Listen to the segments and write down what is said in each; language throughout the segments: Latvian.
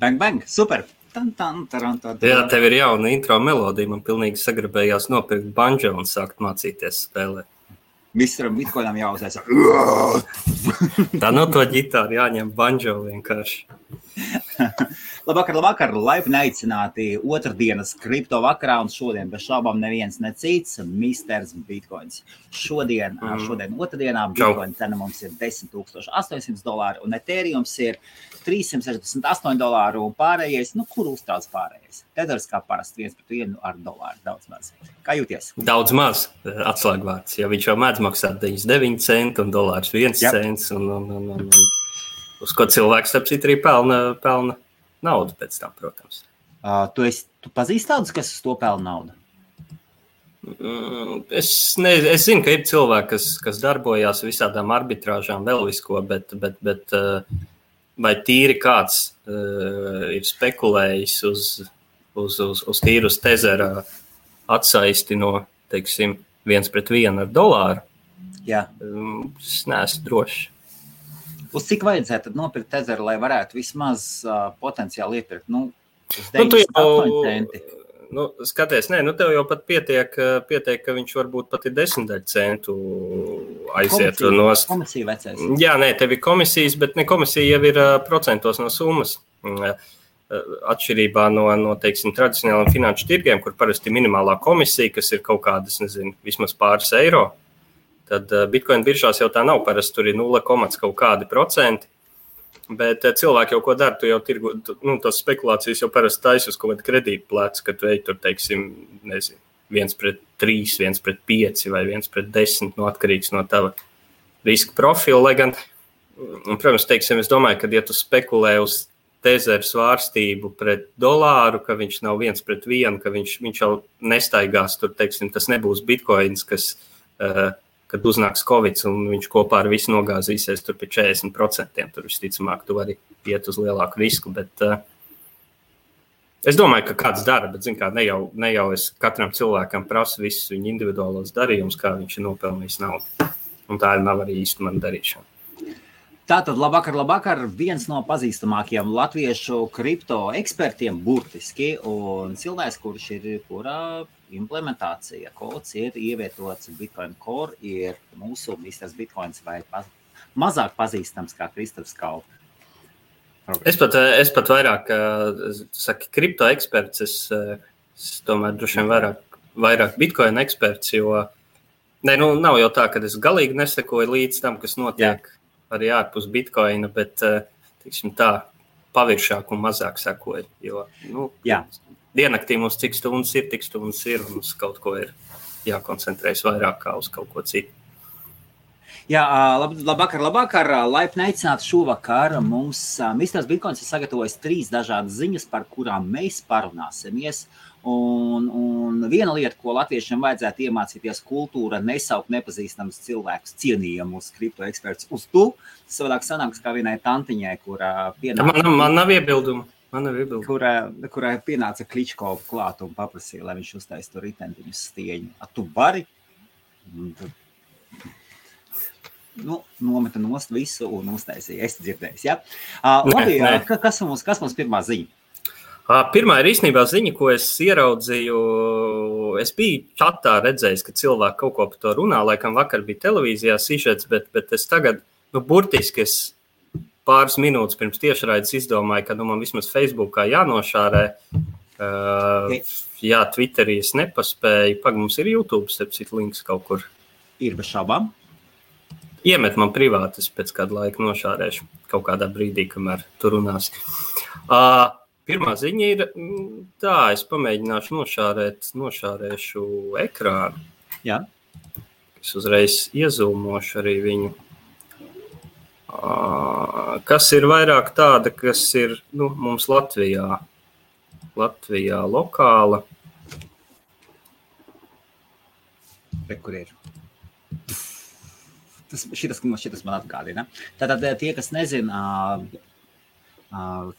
Bang, bang, super! Jā, tev ir jauna intro melodija. Man pilnīgi sagribējās nopirkt banjo un sākt mācīties spēlēt. Misteram Bitcoinam jāuzsēs. Tā no to ģitāru jāņem banjo vienkārši. Labvakar, laipni aicināti otrdienas kripto vakarā, un šodien bez šaubām neviens necīts Misters Bitcoins. Šodien otrdienā Bitcoin cena mums ir $10,800 un Ethereums ir $368 un pārējais, kur uztrauc pārējais? Tethers kā parasti 1/1 ar dolāru, daudz maz. Kā jūties? Daudz maz atslēgvārds, jo viņš jau mēdz maksāt 99 centi un dolārs 1 cents un uz ko cilvēks starp citu arī pelna naudu pēc tam, protams. Tu pazīsti tādus, kas uz to pelna naudu? Es zinu, ka ir cilvēki, kas darbojās visādām arbitrāžām, vēl visko, bet vai tīri kāds ir spekulējis uz tīru uz tezera atsaisti no, teiksim, 1/1 ar dolāru? Jā. Es neesmu drošs. Uz cik vajadzētu nopirkt tezeru, lai varētu vismaz potenciāli iepirkt? Uz 98 centi. Skaties, tev jau pat pietiek, ka viņš varbūt pat ir 10 centu aiziet. Komisija vecais. Jā, tev ir komisijas, bet ne komisija jau ir procentos no summas. Atšķirībā no teiksim, tradicionāliem finanšu tirgiem, kur parasti minimālā komisija, kas ir kaut kādas, vismaz pāris eiro, tad Bitcoin biržās jau tā nav, parasti tur ir 0, kaut kādi procenti. Bet cilvēki jau ko dara, tu jau tirgu, tos spekulācijas jau parasti taisi uz kaut kādu kredītu plecu, ka tu ej tur, teiksim, 1/3, 1/5 vai 1/10, atkarīgs no tava riska profila. Lai gan, protams, teiksim, es domāju, ka ja tu spekulē uz tezeru svārstību pret dolāru, ka viņš nav 1/1, ka viņš jau nestaigās tur, teiksim, tas nebūs Bitcoins, kas kad uznāks Covid un viņš kopā ar visu nogāzīsies tur pie 40%. Tur visticamāk, tu vari iet uz lielāku risku, bet es domāju, ka kāds dara, bet zin kā, ne jau es katram cilvēkam prasu visus viņa individuālos darījumus, kā viņš ir nopelnījis naudu. Un tā nav arī īsti mana darīšana. Tātad, labvakar, viens no pazīstamākajiem latviešu kripto ekspertiem burtiski, un cilvēks, kura implementācija kods ir ievietots Bitcoin Core, ir mūsu Misters Bitcoins vai mazāk pazīstams kā Kristofs Kaupa. Es pat vairāk, saki, kripto eksperts, es tomēr droši vien vairāk Bitcoin eksperts, jo nav jau tā, ka es galīgi nesekoju līdz tam, kas notiek arī ārpus Bitcoina, bet, teiksim tā, paviršāk un mazāk sekoju, jo, diennaktī mums cik stundas ir, tik stundas ir, un uz kaut ko ir jākoncentrējas vairāk kā uz kaut ko citu. Jā, labvakar, laipni aicināti šovakar. Mums Misters Bitcoins ir sagatavojis 3 dažādas ziņas, par kurām mēs parunāsimies. Un viena lieta, ko latviešiem vajadzētu iemācīties, kultūra nesaukt nepazīstams cilvēkus cienījamus kripto eksperts uz tu. Savādāk sanāks kā vienai tantiņai, kura pienāca... Man nav iebildumu. Kurai pienāca Kličkova klāt un paprasīja, lai viņš uztais tur ritentiņus stieņu. Tu vari? Nometa nost visu un uztaisīja. Es dzirdējis, ja? Labi, kas mums pirmā ziņa? Pirmā ir īstenībā ziņa, ko es ieraudzīju. Es biju čatā redzējis, ka cilvēki kaut ko par to runā. Laikam vakar bija televīzijā sižets, bet es tagad, burtiski es pāris minūtes pirms tiešraides izdomāju, ka man vismaz Facebookā jānošārē. Jā, Twitterī es nepaspēju. Mums ir YouTube, sepcīt links kaut kur. Ir bez šaubām. Iemet man privāti, es pēc kāda laika nošārēšu kaut kādā brīdī, kamēr tu runās. Pirmā ziņa ir tā, es pamēģināšu nošārēšu ekrānu. Jā. Es uzreiz iezūmošu arī viņu. Kas ir vairāk tāda, kas ir mums Latvijā lokāla. Kur ir? Šitas man atgādina. Tātad tie, kas nezina,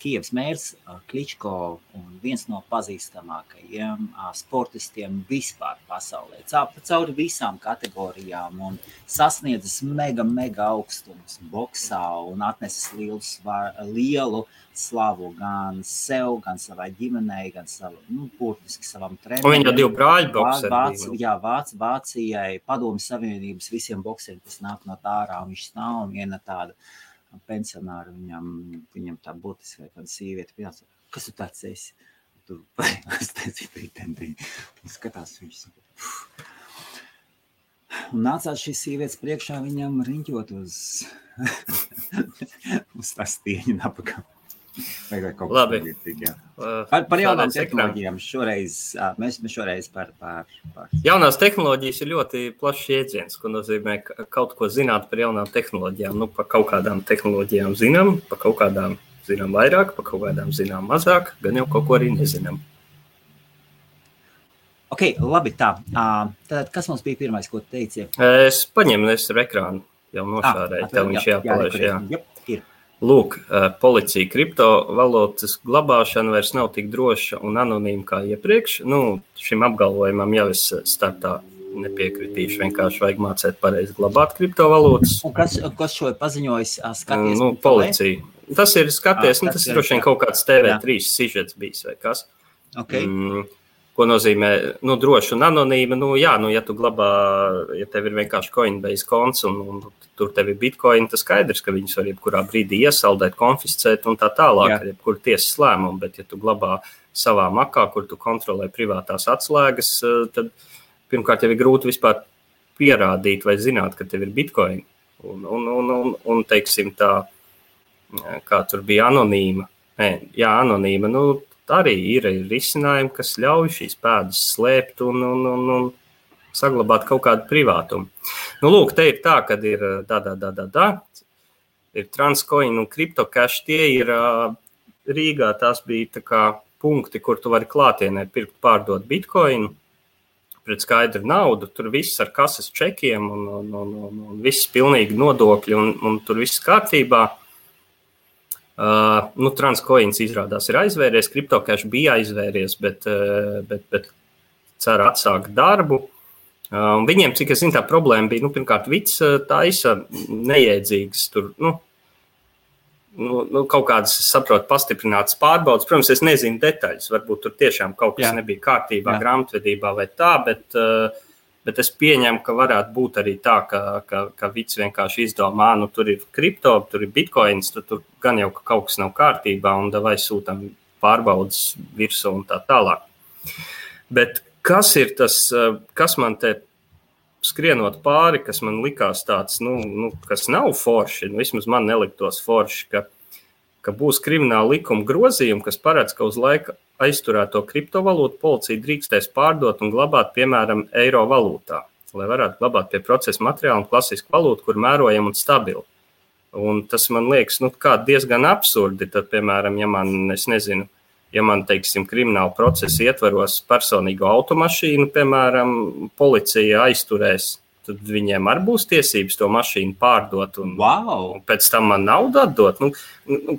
Kijevas mērs Kličko un viens no pazīstamākajiem sportistiem vispār pasaulē. Cauri visām kategorijām un sasniedzis mega augstumus boksā un atnesis lielu slavu gan sev, gan savai ģimenei, gan burtiski savam trenerim. Un viņa jau 2 brāļu bokseri. Vācijai, Padomju Savienības visiem bokseriem, kas nāk no tā ārā, un viņš nav un viena tāda pensionāri, viņam tā būtiski vai kāda sīvieta pienāca. Kas tu tāds esi? Tu skatās viņš. Un nācās šīs sievietes priekšā viņam riņķot uz tā stieņa napakā. Labi. Par jaunām tehnoloģijām mēs šoreiz par... Jaunās tehnoloģijas ir ļoti plašs jēdziens, ko nozīmē kaut ko zināt par jaunām tehnoloģijām. Nu, par kaut kādām tehnoloģijām zinām, par kaut kādām zinām vairāk, par kaut kādām zinām mazāk, gan jau kaut ko arī nezinām. Ok, labi, tā. Tad kas mums bija pirmais, ko teici? Es paņemu ar ekrānu, jau nošārēju, tev viņš jāpalaiž, jā. Ir. Lūk, policija kriptovalūtas glabāšana vairs nav tik droša un anonīma kā iepriekš. Nu, šim apgalvojumam jau es startā nepiekritīšu, vienkārši vajag mācēt pareizi glabāt kriptovalūtas. Un kas šo ir paziņojis? Skaties, policija. Tas ir skaties, tas ir droši vien kaut kāds TV3 sižets bijis vai kas. Okay. Ko nozīmē, droši un anonīma, ja tu glabā, ja tev ir vienkārši Coinbase konts un tur tev ir bitcoin, tas skaidrs, ka viņus var jebkurā brīdī iesaldēt, konfiscēt un tā tālāk, ar jebkuru tiesas lēmumu, bet ja tu glabā savā makā, kur tu kontrolē privātās atslēgas, tad pirmkārt jau ir grūti vispār pierādīt vai zināt, ka tev ir bitcoin. Un teiksim tā, kā tur bija anonīma, anonīma, arī ir risinājumi, kas ļauj šīs pēdas slēpt un saglabāt kaut kādu privātumu. Lūk, te ir tā, kad ir ir Transcoin un CryptoCash, tie ir Rīgā, tās bija tā kā punkti, kur tu vari klātienē pirkt, pārdot bitcoinu pret skaidru naudu, tur viss ar kases čekiem un viss pilnīgi nodokļi un tur viss kārtībā. Transcoins izrādās ir aizvēries, CryptoCash bija aizvēries, bet cer atsākt darbu. Viņiem, cik es zinu, tā problēma bija, pirmkārt, vids taisa nejēdzīgas tur, kaut kādas, saprotu, pastiprinātas pārbaudas. Protams, es nezinu detaļas, varbūt tur tiešām kaut kas nebija kārtībā, grāmatvedībā vai tā, bet es pieņemu, ka varētu būt arī tā, ka vids vienkārši izdomā, tur ir kripto, tur ir bitcoins, tur gan jau ka kaut kas nav kārtībā un vai sūtam pārbaudas virsū un tā tālāk. Bet kas ir tas, kas man te skrienot pāri, kas man likās tāds, kas nav forši, vismaz man neliktos forši, ka būs krimināla likuma grozījumi, kas paredz, ka uz laika aizturēto kriptovalūtu policija drīkstēs pārdot un glabāt, piemēram, eiro valūtā, lai varētu glabāt pie procesa materiālu un klasisku valūtu, kur mērojam un stabili. Un tas man liekas, diezgan absurdi, tad, piemēram, ja man, teiksim, krimināla procesa ietvaros personīgo automašīnu, piemēram, policija aizturēs, tad viņiem arī būs tiesības to mašīnu pārdot un pēc tam man naudu atdot.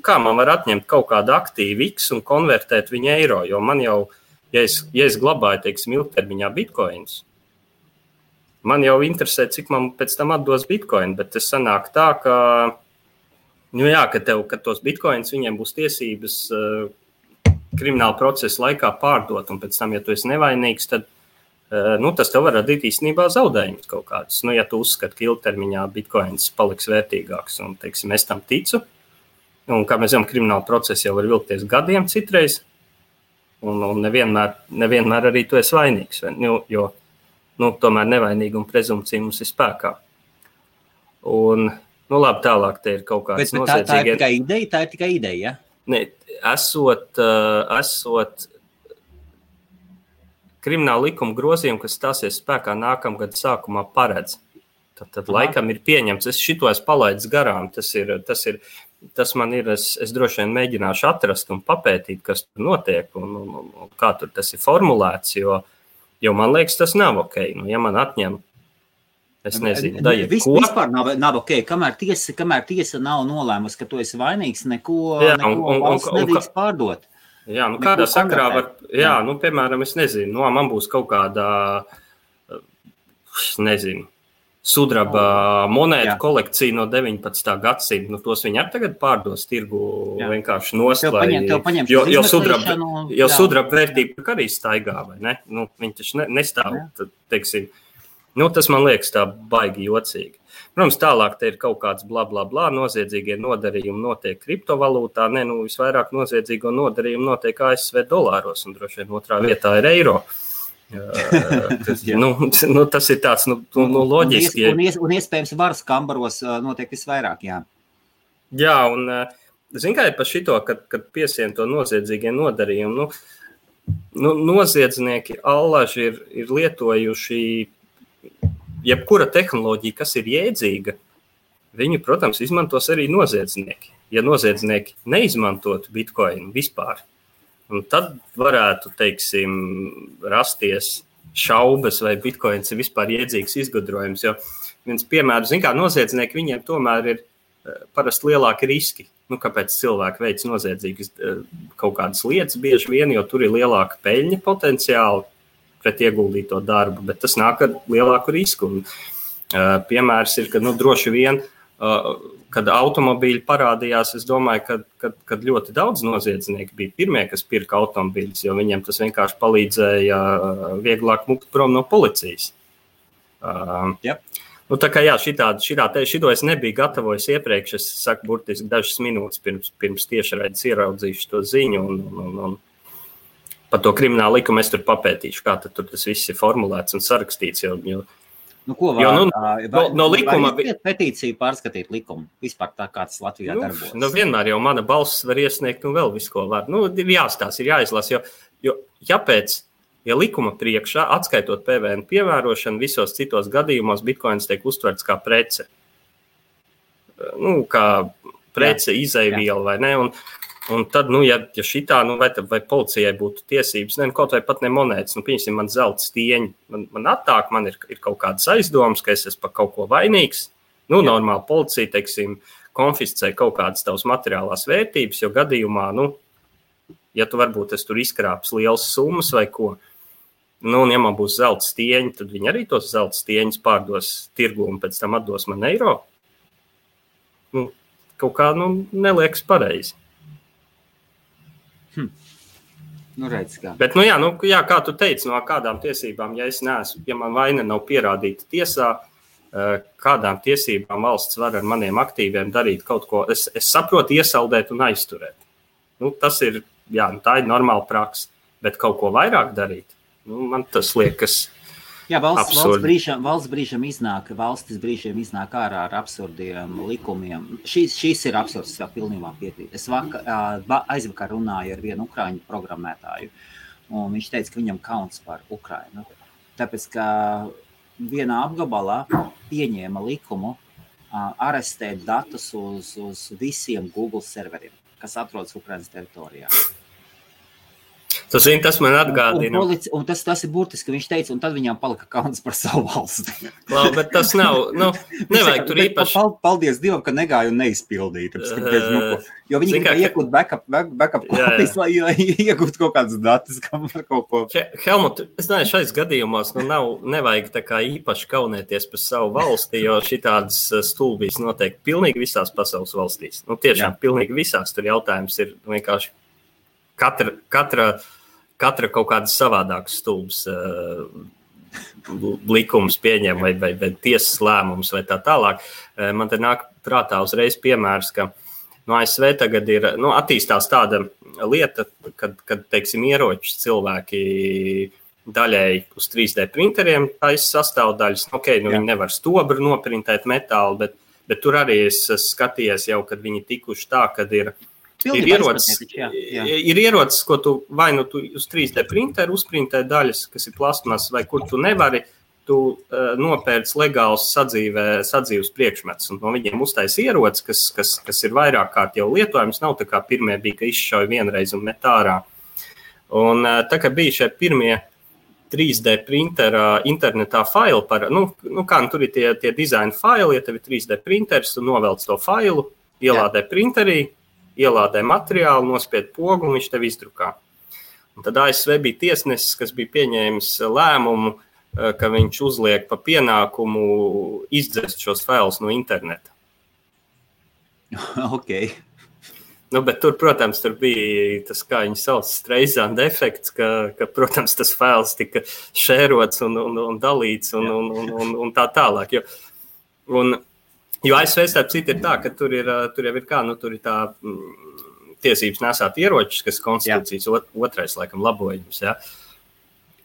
Kā man var atņemt kaut kādu aktīvu X un konvertēt viņu eiro? Jo man jau, ja es glabāju, teiksim, ilgtermiņā bitcoins, man jau interesē, cik man pēc tam atdos bitcoin, bet tas sanāk tā, ka tos bitcoins viņiem būs tiesības krimināla procesa laikā pārdot, un pēc tam, ja tu esi nevainīgs, tad tas tev var radīt īstenībā zaudējumus kaut kādus. Ja tu uzskati, ka ilgtermiņā bitcoins paliks vērtīgāks, un, teiksim, es tam ticu, un kā mēs zinām, krimināla procesa jau var vilkties gadiem citreiz, un nevienmēr arī tu esi vainīgs, jo tomēr nevainīguma prezumpcija mums ir spēkā. Un, labi, tālāk te ir kaut kāds noziedzīgie... Tā ir tikai ideja, ja? Ne, esot krimināla likuma grozījumi, kas stāsies spēkā nākamgad sākumā paredz. Tad laikam ir pieņemts. Es šito esmu palaidis garām. Tas man ir, es droši vien mēģināšu atrast un papētīt, kas tur notiek un kā tur tas ir formulēts, jo man liekas, tas nav ok. Ja man atņem Es nezinu, Vispār nav ok, kamēr tiesa nav nolēmusi, ka tu esi vainīgs, neko valsts nedrīkst pārdot. Jā, nu kādā sakarā var, nu, piemēram, es nezinu, no man būs kaut kādā, nezinu, sudraba monētu kolekcija no 19. gadsimta, nu tos viņi arī tagad pārdos tirgu vienkārši nost, jo sudraba vērtība arī staigā, vai ne? Nu, viņi taču nestāv, tad, teiksim, nu, tas man liekas tā baigi jocīgi. Protams, tālāk te ir kaut kāds bla, noziedzīgie nodarījumi notiek kriptovalūtā, nu, visvairāk noziedzīgo nodarījumu notiek ASV dolāros, un droši vien otrā vietā ir eiro. Tas ir tāds, loģiski. Un iespējams varas kambaros notiek visvairāk, jā. Jā, un zin kā ir par šito, kad piesien to noziedzīgie nodarījumi, noziedznieki allaži ir lietojuši jebkura tehnoloģija, kas ir jēdzīga, viņu, protams, izmantos arī noziedznieki. Ja noziedznieki neizmantotu bitcoinu vispār, un tad varētu, teiksim, rasties šaubas, vai bitcoins ir vispār jēdzīgs izgudrojums. Jo viens piemērs, zin kā, noziedznieki viņiem tomēr ir parasti lielāki riski. Nu, kāpēc cilvēki veic noziedzīgas kaut kādas lietas bieži vien, jo tur ir lielāka peļņa potenciāli pret ieguldīto darbu, bet tas nāk ar lielāku risku. Un, piemērs ir, ka droši vien, kad automobīļi parādījās, es domāju, kad ļoti daudz noziedznieki bija pirmie, kas pirka automobīļus, jo viņiem tas vienkārši palīdzēja vieglāk mukt prom no policijas. Yep. Nu, tā kā šito es nebiju gatavojis iepriekš, es saku burtiski dažas minūtes pirms tiešraides ieraudzīšu to ziņu un par to kriminālu likumu es tur papētīšu, kā tad tur tas viss ir formulēts un sarakstīts, jo no likuma petīciju pārskatīt likumu, vispār tā kā tas Latvijā darbojas. Vienmēr jau mana balss var iesniegt un vēl visu, ko var. Ir jāstāsta, ir jāizlas, jo ja likuma priekšā, atskaitot PVN piemērošanu, visos citos gadījumos bitcoins tiek uztverts kā prece. Kā prece, izejviela vai ne, un tad, ja šitā, vai policijai būtu tiesības, kaut vai pat ne monētas, pieņemsim, man zelta stieņi, man attāk, man ir kaut kādas aizdomas, ka es esmu par kaut ko vainīgs. Normāli policija, teiksim, konfiscē kaut kādas tavas materiālās vērtības, jo gadījumā, ja tu varbūt es tur izkrāps lielas summas vai ko, un ja man būs zelta stieņi, tad viņi arī tos zelta stieņus pārdos tirgu un pēc tam atdos man eiro. Kaut kā, neliekas pareizi. Redz, kā. Bet, kā tu teici, no kādām tiesībām, ja man vaina nav pierādīta tiesā, kādām tiesībām valsts var ar maniem aktīviem darīt kaut ko, es saprotu iesaldēt un aizturēt. Tas ir, tā ir normāla praksa, bet kaut ko vairāk darīt, man tas liekas valsts brīžam iznāk ārā ar absurdiem likumiem. Šīs ir absurds, vēl pilnībā piekrīt. Es aizvakar runāju ar vienu ukraiņu programmētāju, un viņš teica, ka viņam kauns par Ukrainu. Tāpēc, ka vienā apgabalā pieņēma likumu arestēt datus uz visiem Google serveriem, kas atrodas Ukrainas teritorijā. Tas man atgādina. Un tas ir burtiski, viņš teica, un tad viņām palika kauns par savu valsti. Labi, bet tas nav, nevajag tur īpaši. Paldies Dievam, ka negāju un neizpildīju. Jo viņi gribēja iegūt backup kopijas, lai iegūtu kaut kādas datus, kam var kaut ko. Helmut, es domāju, šais gadījumos nevajag tā kā īpaši kaunēties par savu valsti, jo šitādas stulbīs notiek pilnīgi visās pasaules valstīs. Tiešām pilnīgi visās tur jautājums ir vienkārši katra kaut kādas savādākas stulbas likums pieņem vai tiesas lēmums vai tā tālāk. Man te nāk prātā uzreiz piemērs, ka ASV tagad ir, attīstās tāda lieta, kad teiksim, ieročus cilvēki daļēji uz 3D printeriem taisa sastāvdaļas. Viņi nevar stobru noprintēt metālu, bet tur arī es skatījies jau, kad viņi tikuši tā, kad ir ierocis, ko tu vai tu uz 3D printeru uzprintē daļas, kas ir plasmas, vai kur tu nevari, tu nopērc legāls sadzīves priekšmets. Un no viņiem uztais ierocis, kas ir vairāk kārt jau lietojams, nav tā kā pirmie bija, ka izšauja vienreiz un met ārā. Un tā kā bija šie pirmie 3D printera internetā failu tur ir tie dizaina faili, ja tev ir 3D printeris, tu novelc to failu, ielādē printerī, ielādē materiālu, nospied pogu un viņš tev izdrukā. Un tad ASV bija tiesnesis, kas bija pieņēmis lēmumu, ka viņš uzliek pa pienākumu izdzest šos failus no interneta. Ok. Bet tur, protams, tur bija tas, kā viņi sauc, Streisand efekts, ka, protams, tas fails tika šērots un dalīts un tā tālāk. Jo ASV starp citu ir tā, ka tur jau ir kā, tur ir tā tiesības nesāt ieročus, kas konstitūcijas otrais, laikam, labojums, ja.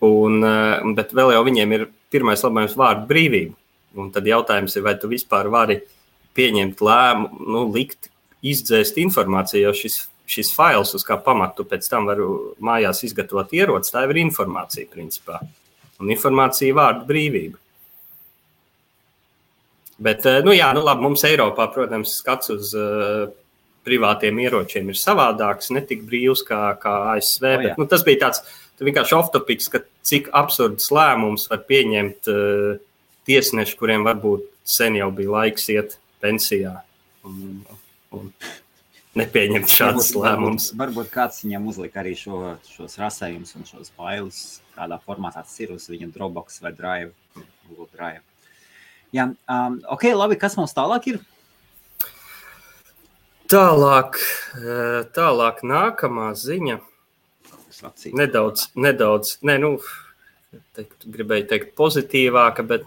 Bet vēl jau viņiem ir pirmais labojums vārdu brīvība. Un tad jautājums ir, vai tu vispār vari pieņemt lēmumu, likt izdzēst informāciju, jo šis fails, uz kā pamatu pēc tam varu mājās izgatavot ieroci, tā ir informācija, principā. Un informācija vārdu brīvība. Bet, labi, mums Eiropā, protams, skats uz privātiem ieročiem ir savādāks, ne tik brīvs kā ASV. Bet, tas bija tāds vienkārši off-topics, ka cik absurds lēmums var pieņemt tiesneši, kuriem varbūt sen jau bija laiks iet pensijā. Un nepieņemt šādas lēmumus. Varbūt kāds viņam uzlika arī šos rasējumus un šos failus, kādā formātā tas ir uz viņa Dropbox vai Drive, Google Drive. Jā, ok, labi, kas mums tālāk ir? Tālāk nākamā ziņa. Nedaudz, gribēju teikt pozitīvāka, bet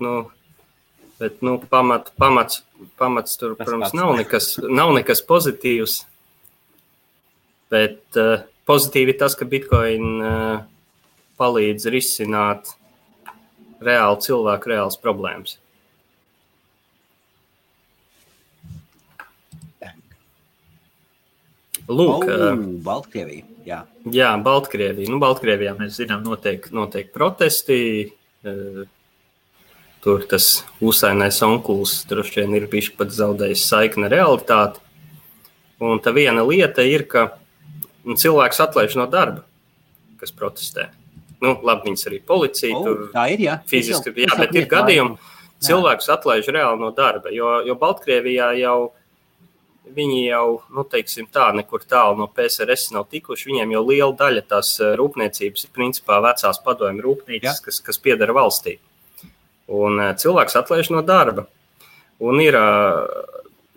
pamats tur, protams, nav nekas pozitīvs, bet pozitīvi ir tas, ka Bitcoin palīdz risināt cilvēku reāls problēmas. Lūk, Baltkrievija, jā. Jā, Baltkrievija. Baltkrievijā mēs zinām notiek protesti. Tur tas ūsainais onkulis droši vien ir bišķi pat zaudējis saikni realitāti. Un tā viena lieta ir, ka cilvēks atlaiž no darba, kas protestē. Labi, viņas arī policija tur tā ir, jā. Fiziski, bet ir gadījumi, cilvēks atlaiž reāli no darba, jo Baltkrievijā viņi jau, teiksim tā, nekur tālu no PSRS nav tikuši, viņiem jau liela daļa tās rūpniecības ir principā vecās padomju rūpnīcas, kas piedara valstī. Un cilvēks atlaiž no darba. Un ir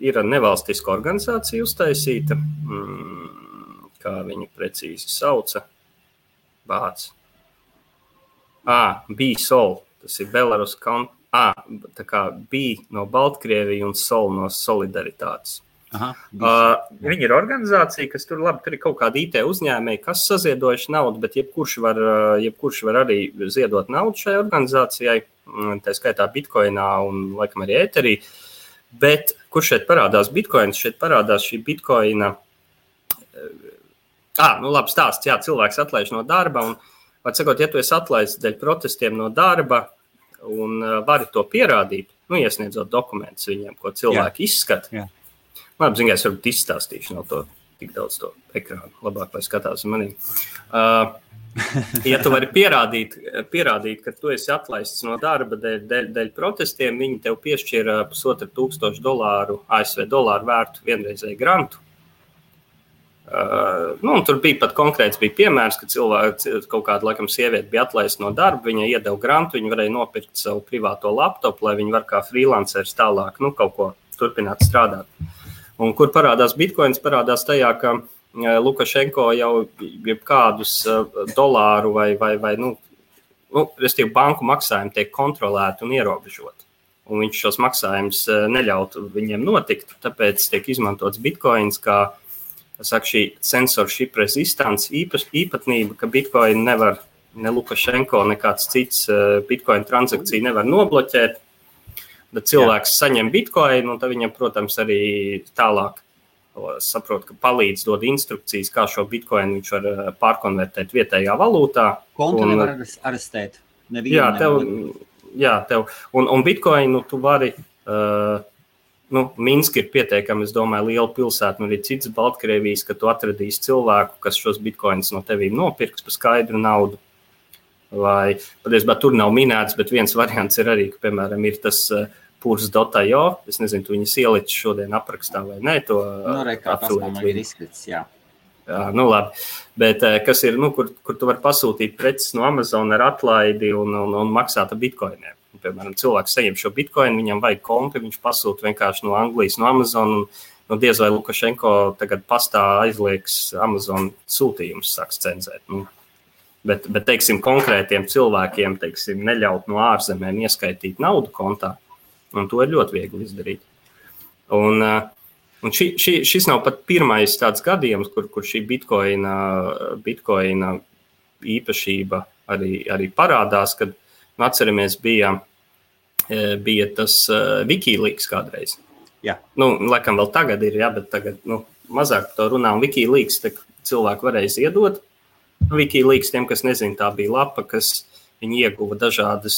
nevalstiska organizācija uztaisīta, kā viņu precīzi sauca, B-Sol, tas ir Belarus, tā kā B no Baltkrievija un Sol no Solidaritātes. Viņi ir organizācija, kas tur ir kaut kāda IT uzņēmēji, kas saziedojuši naudu, bet jebkurš var arī ziedot naudu šai organizācijai, tā skaitā Bitcoinā un laikam arī Etherī. Bet kur šeit parādās Bitcoins? Šeit parādās šī Bitcoina. Labi stāsts, jā, cilvēks atlaiž no darba un, var sakot, ja tu esi atlaists dēļ protestiem no darba un vari to pierādīt, iesniedzot dokumentus viņiem, ko cilvēki izskata. Jā. Labi, zinu, es varbūt izstāstīšu, nav to tik daudz to ekrānu, labāk, lai skatās uz manī. Ja tu vari pierādīt, ka tu esi atlaists no darba dēļ protestiem, viņi tev piešķir $1,500 ASV dolāru vērtu vienreizēju grantu. Un tur bija pat konkrēts piemērs, ka kaut kāda laikam sieviete bija atlaista no darba, viņa iedeva grantu, viņa varēja nopirkt savu privāto laptopu, lai viņa var kā freelanceris tālāk, kaut ko turpināt strādāt. Un kur parādās Bitcoins, parādās tajā, ka Lukašenko jau kādus dolāru vai restīvi banku maksājumi tiek kontrolēti un ierobežoti. Un viņš šos maksājumus neļautu viņiem notikt, tāpēc tiek izmantots Bitcoins kā šī censorship resistance īpatnība, ka Bitcoin nevar, ne Lukašenko, nekāds cits Bitcoin transakciju nevar nobloķēt. Bet cilvēks saņem Bitcoin, un tad viņam, protams, arī tālāk saprot, ka palīdz dod instrukcijas, kā šo Bitcoin viņš var pārkonvertēt vietējā valūtā. Kontu nevar arestēt. Tev. Un Bitcoinu tu vari, Minska ir pietiekami, es domāju, liela pilsēta, arī cits Baltkrievijas, ka tu atradīsi cilvēku, kas šos Bitcoinus no tevīm nopirks par skaidru naudu. vai patiesībā tur nav minēts, bet viens variants ir arī, ka, piemēram, ir tas Purs.io, es nezinu, tu viņas ielici šodien aprakstā vai nē, to afiliētu ir izskats, jā. Jā, nu labi, bet kas ir, kur tu vari pasūtīt preces no Amazon ar atlaidi un maksāt ar bitcoiniem. Piemēram, cilvēks saņem šo bitcoinu, viņam vajag konti, viņš pasūta vienkārši no Anglijas, no Amazon, un diez vai Lukašenko tagad pastā aizliegs Amazon sūtījumus, sāks cenzēt. Bet, teiksim, konkrētiem cilvēkiem, teiksim, neļaut no ārzemēm ieskaitīt naudu kontā, un to ir ļoti viegli izdarīt. Un šis nav pat pirmais tāds gadījums, kur šī bitcoina īpašība arī parādās, kad atceramies bija tas Wikileaks kādreiz. Jā. Laikam vēl tagad ir, jā, bet tagad mazāk to runā. Un Wikileaks cilvēki varēja ziedot. Wikileaks, tiem, kas nezina, tā bija lapa, kas viņi ieguva dažādas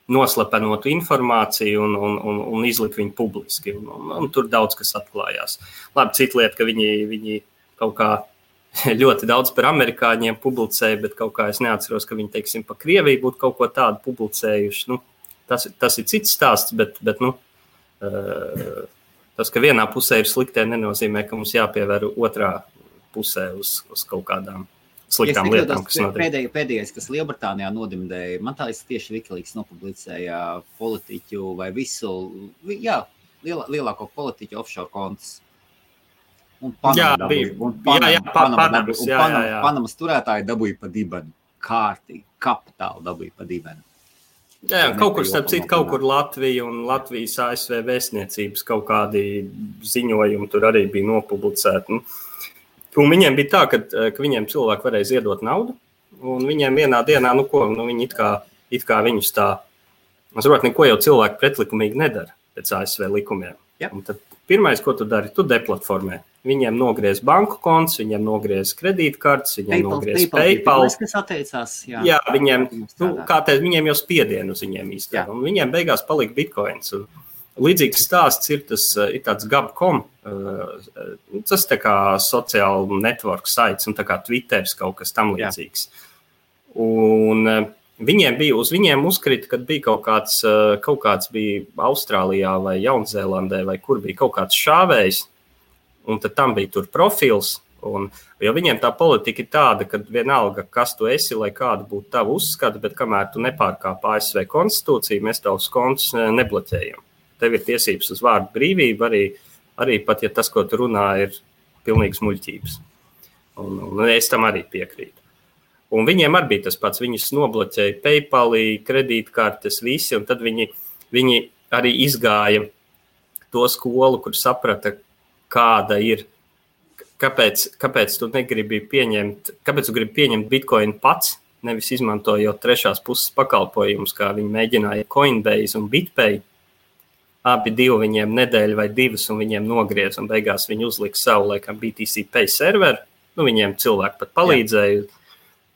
noslepenotu informāciju un izlika viņu publiski. Un tur daudz kas atklājās. Labi, cita lieta, ka viņi kaut kā ļoti daudz par amerikāņiem publicēja, bet kaut kā es neatceros, ka viņi, teiksim, pa Krieviju būtu kaut ko tādu publicējuši. Tas ir cits stāsts, bet tas, ka vienā pusē ir sliktē, nenozīmē, ka mums jāpievēr otrā pusē uz kaut kādām sliktām lietām, kas notiek. Pēdējais, kas Lielbritānijā nodimdēja, man tā tieši Wikileaks nopublicēja politiķu vai lielāko politiķu offshore kontus. Un Panamas turētāji dabūja pa dibenu, kārtīgi, kapitāli dabūja pa dibenu. Jā, kaut kur, starp citu, kaut kur Latvija un Latvijas ASV vēstniecības kaut kādi ziņojumi tur arī bija nopublicēti. Un viņiem bija tā, ka viņiem cilvēki varēja ziedot naudu, un viņiem vienā dienā, viņi it kā viņus tā, es saprotu, neko jau cilvēki pretlikumīgi nedara pēc ASV likumiem. Ja. Un tad pirmais, ko tu dari, tu deplatformē. Viņiem nogriez banku konts, viņiem nogriez kredītkartes, viņiem nogriez PayPal. Kas atteicās, jā, viņiem, viņiem jau spiedienu uz viņiem īstenībā. Un viņiem beigās palika bitcoins. Un līdzīgs stāsts ir tāds Gab.com, tas tā kā sociāla network sites un tā kā Twitteris kaut kas tam līdzīgs. Un uz viņiem uzkrita, kad bija kaut kāds bija Austrālijā vai Jaunzēlandē vai kur bija kaut kāds šāvējs, un tad tam bija tur profils, jo viņiem tā politika ir tāda, ka vienalga, kas tu esi, lai kāda būtu tava uzskata, bet kamēr tu nepārkāp ASV konstitūciju, mēs tavus kontus nebloķējam. Tev ir tiesības uz vārdu brīvību, arī pat, ja tas, ko tu runā, ir pilnīgs muļķības. Un es tam arī piekrītu. Un viņiem arī bija tas pats, viņus nobloķēja PayPal, kredītkartes, visi, un tad viņi arī izgāja to skolu, kur saprata, kāda ir, kāpēc tu negribi kāpēc tu gribi pieņemt Bitcoin pats, nevis izmantojot trešās puses pakalpojumus, kā viņi mēģināja Coinbase un BitPay. Abi divi viņiem nedēļu vai divas, un viņiem nogriez, un beigās viņi uzlika savu, laikam, BTC Pay serveru. Viņiem cilvēki pat palīdzēja,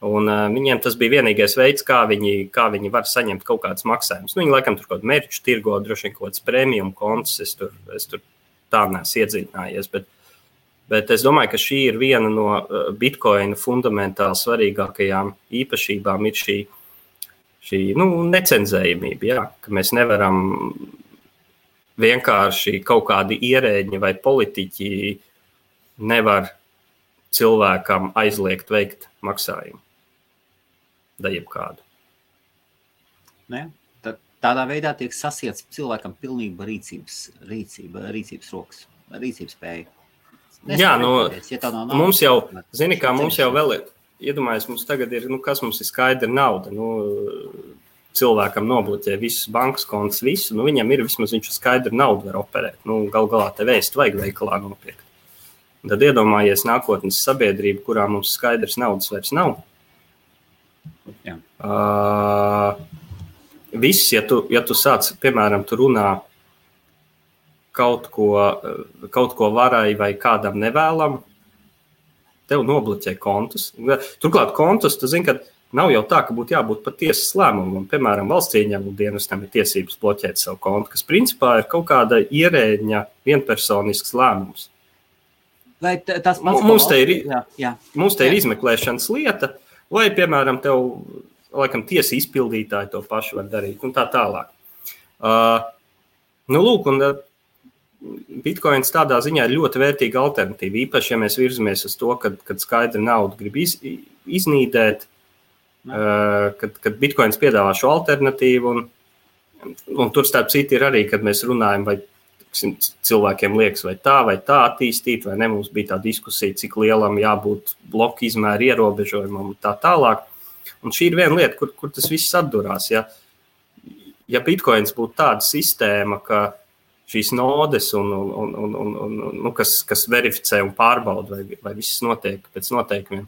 un viņiem tas bija vienīgais veids, kā viņi var saņemt kaut kādas maksājumus. Viņi, laikam, tur kaut kādu merču tirgo, droši vien kaut kāds premium kontus, es tur tā neesmu iedziļinājies, bet es domāju, ka šī ir viena no Bitcoina fundamentāli svarīgākajām īpašībām, ir šī necenzējamība, jā, ka mēs nevaram vienkārši kaut kādi ierēģi vai politiķi nevar cilvēkam aizliegt veikt maksājumu. Da jebkādu. Tādā veidā tiek sasiets cilvēkam pilnība rīcības rokas, rīcības spēja. Jā, mums jau, mums jau vēl ir, iedomājies, mums tagad ir, kas mums ir skaidra nauda, cilvēkam nobloķē visus bankas kontus, visu, viņam ir vismaz viņš skaidru naudu var operēt. Gal galā te vēstu vajag veikalā nopirkt. Un tad iedomājies nākotnes sabiedrību, kurā mums skaidrs naudas vairs nav. Jā. Viss, ja tu sāc, piemēram, tu runā kaut ko varai vai kādam nevēlam, tev nobloķē kontus. Turklāt kontus, tu zini, ka nav jau tā, ka būtu jābūt pat tiesas lēmumam. Piemēram, valsts ieņēmuma dienestam ir tiesības bloķēt savu kontu, kas principā ir kaut kāda ierēģņa vienpersonisks lēmums. Mums te ir izmeklēšanas lieta, vai, piemēram, tev laikam tiesa izpildītāji to pašu var darīt un tā tālāk. Nu, lūk, un Bitcoins tādā ziņā ir ļoti vērtīga alternatīva. Īpaši, ja mēs virzamies uz to, kad skaidri naudu grib iznīdēt, kad Bitcoins piedāvā šo alternatīvu. Un tur starp citu ir arī, kad mēs runājam, vai cilvēkiem liekas, vai tā attīstīt, vai ne. Mums bija tā diskusija, cik lielam jābūt bloku izmēra ierobežojumam un tā tālāk. Un šī ir viena lieta, kur tas viss atdurās. Ja Bitcoins būtu tāda sistēma, ka šīs nodes, kas verificē un pārbauda, vai viss notiek pēc noteikumiem,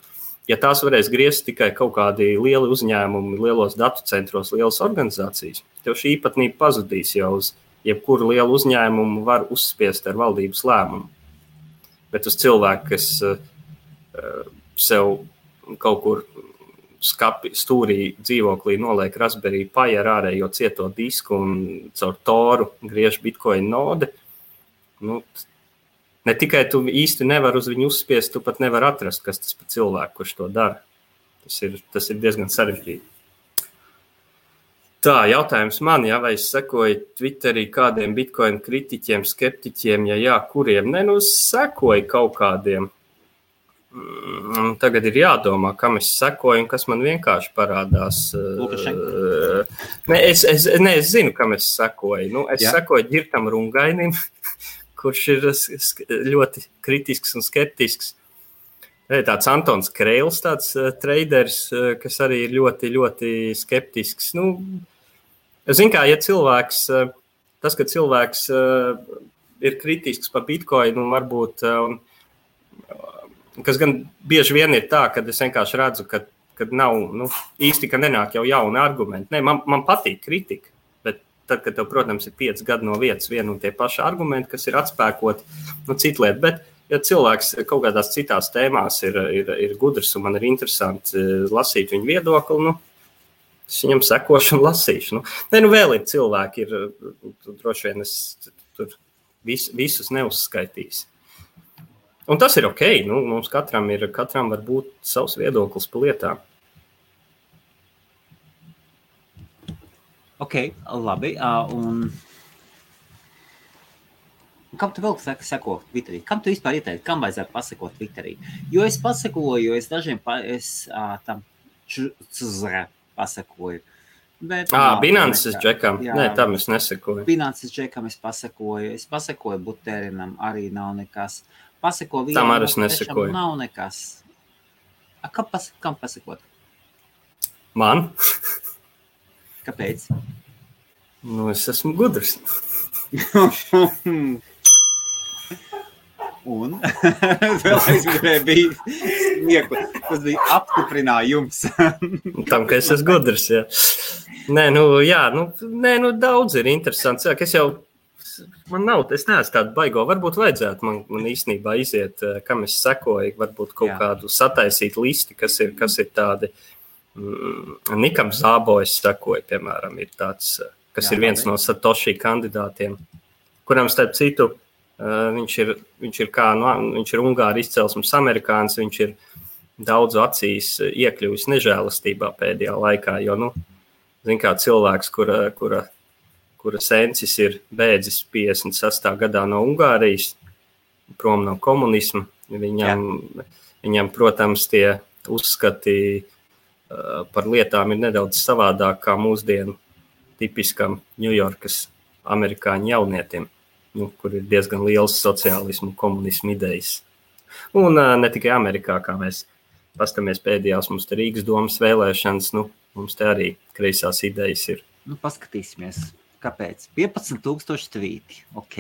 ja tās varēs griezt tikai kaut kādi lieli uzņēmumi, lielos datu centros, lielas organizācijas, tev šī īpatnība pazudīs jau uz jebkuru lielu uzņēmumu var uzspiest ar valdības lēmumu. Bet uz cilvēku, kas sev kaut kur stūrī dzīvoklī noliek Raspberry Pi ar ārējo cieto disku un caur Toru griež Bitcoin node, ne tikai tu īsti nevar uz viņu uzspiest, tu pat nevar atrast, kas tas par cilvēku, kurš to dara. Tas ir diezgan sarežģīti. Tā, jautājums man, vai es sekoju Twitterī kādiem Bitcoin kritiķiem, skeptiķiem, ja jā, kuriem? Sekoju kaut kādiem. Tagad ir jādomā, kam es sekoju un kas man vienkārši parādās. Es zinu, kam es sekoju. Es sekoju Ģirtam Rungainim, kurš ir ļoti kritisks un skeptisks. Tāds Antons Kreils, tāds traders, kas arī ir ļoti, ļoti skeptisks. Zin kā, ja cilvēks, ka cilvēks ir kritisks par Bitcoinu un varbūt... kas gan bieži vien ir tā, kad es vienkārši redzu, kad nav, īsti, ka nenāk jau jauni argumenti. Man patīk kritika, bet tad, kad tev, protams, ir 5 gadi no vietas vien un tie paši argumenti, kas ir atspēkot, cita lieta. Bet, ja cilvēks kaut kādās citās tēmās ir gudrs un man ir interesanti lasīt viņu viedokli, es viņam sekošu un lasīšu. Vēl ir cilvēki, droši vien es tur visus neuzskaitīs. Un tas ir ok, mums katram var būt savs viedoklis par lietām. Ok, labi. Un kam tu vēl seko Twitterī? Kam tu vispār ieteikti? Kam vajadzētu pasakot Twitterī? Jo es pasakoju, es dažiem tam pasakoju. Bet, Binances džekam? Nē, tam es nesekoju. Binances džekam es pasakoju. Es pasakoju Buterinam, arī nav nekas. Pasako vienam, tam arī es nesekoju. Nav nekas. Kam pasakot? Man? Kāpēc? Es esmu gudrs. Un? Vēlreiz bija smiekli. Tas bija apstiprinājums. Tam, ka es esmu gudrs, jā. Daudz ir interesants. Es jau es neesmu tādu baigo. Varbūt vajadzētu man īstenībā iziet, kam es sekoju, varbūt kaut kādu sataisīt listi, kas ir tādi. Nikam Zābo es sekoju, piemēram, ir tāds, kas ir viens no Satoshi kandidātiem, kuram starp citu viņš ir Ungāri izcelsmes amerikānis, viņš ir daudzu acīs iekļuvis nežēlastībā pēdējā laikā, jo, zin kā cilvēks, kura sensis ir bēdzis 56. gadā no Ungārijas, prom no komunisma. Viņam, protams, tie uzskati par lietām ir nedaudz savādāk kā mūsdienu tipiskam Ņujorkas amerikāņu jaunietim, kur ir diezgan liels sociālismu un komunismu idejas. Un ne tikai Amerikā, kā mēs paskatāmies pēdējās, mums te Rīgas domas vēlēšanas, mums te arī kreisās idejas ir. Paskatīsimies. Kāpēc? 15,000 tvīti. Ok.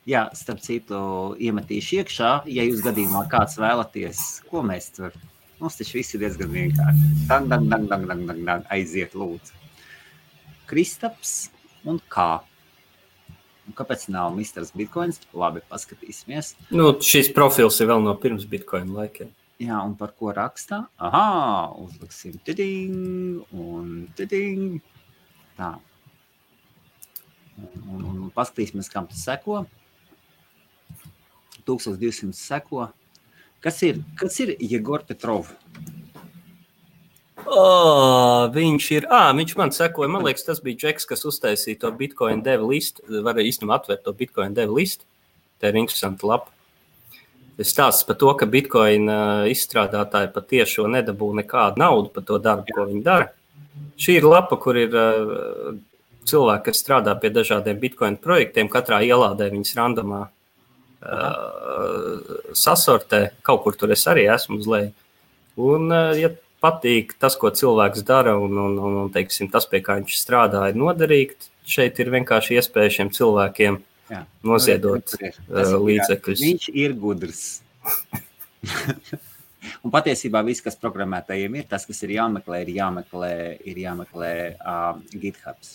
Jā, starp citu, iemetīšu iekšā, ja jūs gadījumā kāds vēlaties, ko mēs tur. Mums taču viss ir diezgan vienkārši. Dang, aiziet lūdzu. Kristaps un kā? Un kāpēc nav Misters Bitcoins? Labi, paskatīsimies. Šis profils ir vēl no pirms Bitcoin laikiem. Jā, un par ko rakstā? Uzliksim tiding un tiding. Tā. Un paskatīsimies, kam tas seko. 1200 seko. Kas ir Jegor Petrov? Viņš man sekoja, man liekas, tas bija Džeks, kas uztaisīja to Bitcoin devu listu, varēja īstenībā atvērt to Bitcoin devu listu. Tā ir interesanta lapa. Es stāstu par to, ka Bitcoin izstrādātāji patiešo nedabū nekādu naudu par to darbu, ko viņi dara. Šī ir lapa, kur ir cilvēki, kas strādā pie dažādiem Bitcoin projektiem, katrā ielādē viņas randomā sasortē, kaut kur tur es arī esmu uz leju. Un, ja patīk tas, ko cilvēks dara, un teiksim, tas, pie kā viņš strādā, ir noderīgi, šeit ir vienkārši iespēja šiem cilvēkiem noziedot līdzekļus. Viņš ir gudrs. Un patiesībā viss, kas programmētājiem ir, tas, kas ir jāmeklē GitHubs.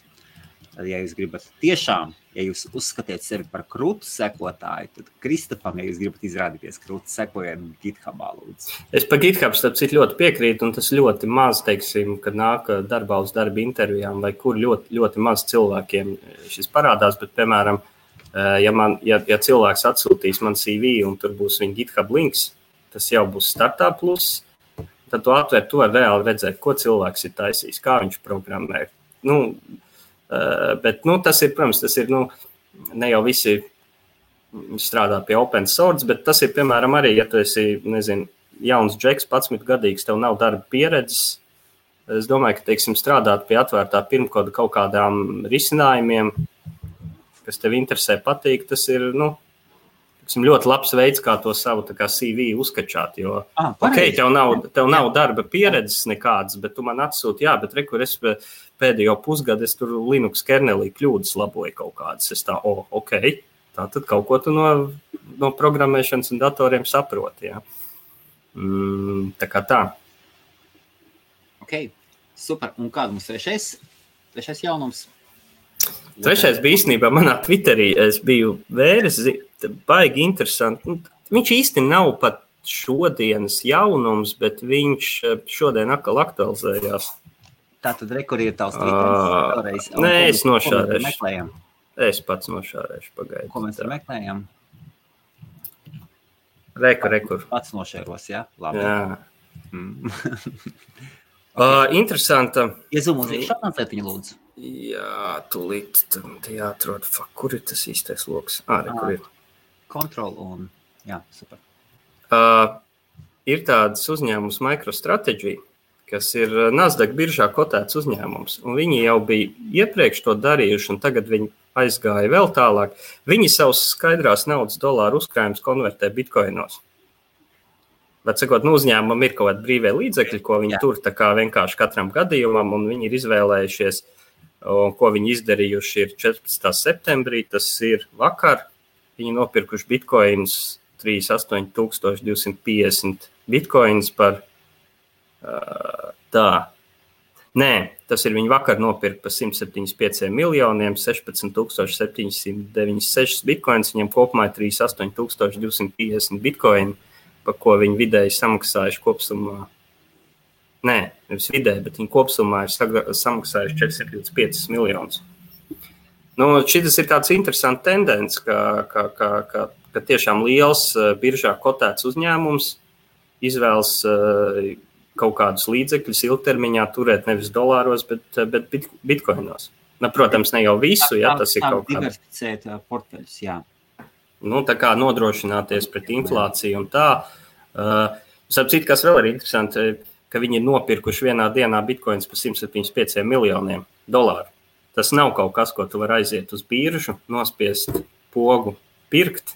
Tad, ja jūs gribat tiešām, ja jūs uzskatiet sevi par krūtu sekotāju, tad Kristofam, ja jūs gribat izrādīties krūtu, sekojiet GitHubā, lūdzu. Es par GitHub starp citu ļoti piekrītu, un tas ļoti maz, teiksim, kad nāk darbā uz darba intervijām, vai kur ļoti, ļoti maz cilvēkiem šis parādās, bet, piemēram, ja cilvēks atsūtīs man CV un tur būs viņa GitHub links, tas jau būs Startup Plus, tad tu atver, tu var reāli redzēt, ko cilvēks ir taisījis, kā viņš programmē. Bet tas ir, protams, ne jau visi strādā pie open source, bet tas ir, piemēram, arī, ja tu esi, jauns džeks, 11 gadīgs, tev nav darba pieredzes. Es domāju, ka, teiksim, strādāt pie atvērtā pirmkoda kaut kādām risinājumiem, kas tev interesē, patīk, tas ir, ļoti labs veids, kā to savu tā kā CV uzkačāt, jo, tev nav darba pieredzes nekādas, bet tu man atsūti, bet rekur es pēdējo pusgadu, es tur Linux kernelī kļūdas laboju kaut kādas, es tā, tā tad kaut ko tu no programmēšanas un datoriem saproti, tā kā tā. Super, un kāda mums trešais jaunums? Trešais bija īstenībā manā Twitterī, es biju vēris, baigi interesanti. Viņš īsti nav pat šodienas jaunums, bet viņš šodien atkal aktualizējās. Tātad rekur ir tavs Twitteris? Nē, es nošārēšu. Es pats nošārēšu, pagaidu. Ko mēs meklējam? Rekur. Pats nošēros, jā? Labi. Interesanta. Iezum uz iekšā, lietiņu lūdzu. Jā, tūlīt jāatrod, kur ir tas īstais loks? Rekur ir. Control un, super. Ir tāds uzņēmums MicroStrategy, kas ir Nasdaq biržā kotēts uzņēmums, un viņi jau bija iepriekš to darījuši, un tagad viņi aizgāja vēl tālāk. Viņi savus skaidrās naudas dolāru uzkrājumus konvertē bitcoinos. Bet, sakot, uzņēmumam ir kaut kādi brīvie līdzekļi, ko viņi tur tā kā vienkārši katram gadījumam, un viņi ir izvēlējušies, un ko viņi izdarījuši ir 14. septembrī, tas ir vakar. Viņi nopirkuši bitcoins 38,250 bitcoins par tas ir viņi vakar nopirka par 175 miljoniem, 16,796 bitcoins, viņiem kopumā ir 38,250 bitcoini, par ko viņi vidēji samaksājuši kopsumā. Nē, nevis vidēji, bet viņi kopsumā ir samaksājuši 425 miljonus. Šis ir tāds interesants tendence, ka tiešām liels biržā kotēts uzņēmums izvēlas kaut kādus līdzekļus ilgtermiņā turēt nevis dolāros, bet bitcoinos. Protams, ne jau visu, tas ir kaut kā. Diversificēt portfeļus, tā kā nodrošināties pret inflāciju un tā. Sapcīt, kas vēl ir interesanti, ka viņi ir nopirkuši vienā dienā bitcoins par 175 miljoniem dolāru. Tas nav kaut kas, ko tu vari aiziet uz biržu, nospiest pogu, pirkt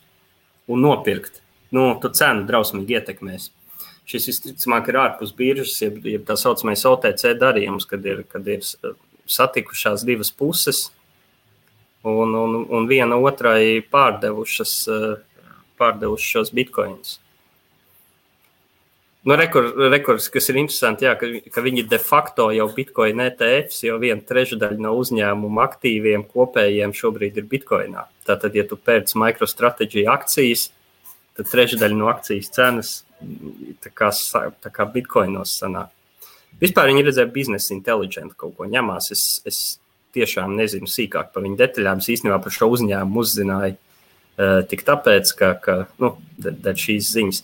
un nopirkt. Tu cenu drausmīgi ietekmēs. Šis visticamāk ir ārpus biržas, ja tā saucamais OTC darījums, kad ir satikušās divas puses un viena otrai pārdevušas šos bitcoinus. Rekords, kas ir interesanti, ka viņi de facto jau bitcoin ETFs, jau 1/3 no uzņēmuma aktīviem kopējiem šobrīd ir bitcoinā. Tātad, ja tu pērc MicroStrategy akcijas, tad 1/3 no akcijas cenas tā kā bitcoinos sanāk. Vispār viņi redzēja Business Intelligence kaut ko ņemās. Es tiešām nezinu sīkāk par viņu detaļām. Es īstenībā par šo uzņēmumu uzzināju tik tāpēc, ka dēļ šīs ziņas.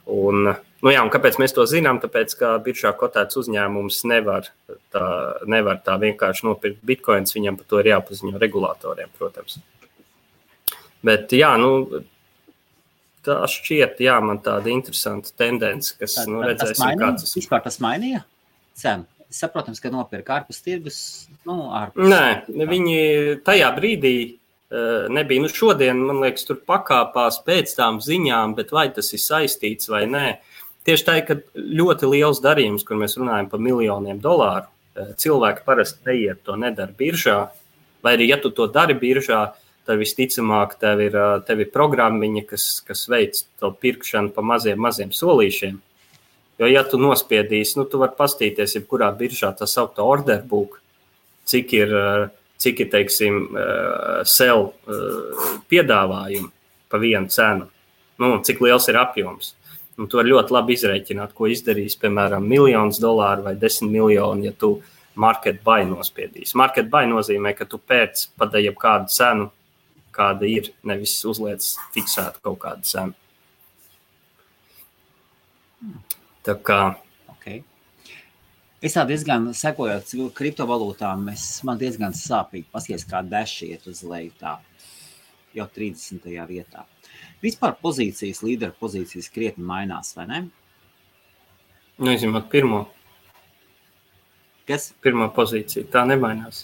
Un Nu jā, un kāpēc mēs to zinām? Tāpēc, ka biržā kotēts uzņēmums nevar tā vienkārši nopirkt bitcoins, viņam par to ir jāpaziņo regulātoriem, protams. Bet jā, tā šķiet, jā, man tāda interesanta tendence, kas, redzēsim, kāds. Vispār tas mainīja cenu? Saprotams, ka nopirka ārpus tirgus, ārpus. Nē, viņi tajā brīdī nebija. Šodien, man liekas, tur pakāpās pēc tām ziņām, bet vai tas ir saistīts vai nē. Tieši tā, ka ļoti liels darījums, kur mēs runājam par miljoniem dolāru, cilvēki parasti neiet to nedara biržā, vai arī, ja tu to dari biržā, tad visticamāk tev ir programmiņa, kas veic to pirkšanu pa maziem solīšiem. Jo, ja tu nospiedīsi, tu vari pastīties, jebkurā biržā tā saukta order book, cik ir, teiksim, sell piedāvājumi pa vienu cenu, cik liels ir apjoms. Un tu vari ļoti labi izrēķināt, ko izdarīs, piemēram, $1,000,000 vai 10 miljoni, ja tu market buy nospiedīsi. Market buy nozīmē, ka tu pēc padēji kādu cenu, kāda ir, nevis uzliec fiksētu kaut kādu cenu. Tā kā. Okay. Es tā diezgan sekojot kriptovalūtām, man diezgan sāpīgi paskaties, kā Dash iet uz leju tā, jau 30. vietā. Vispār pozīcijas, līderu pozīcijas krietni mainās, vai ne? Izņemot pirmo. Kas? Pirmā pozīcija, tā nemainās.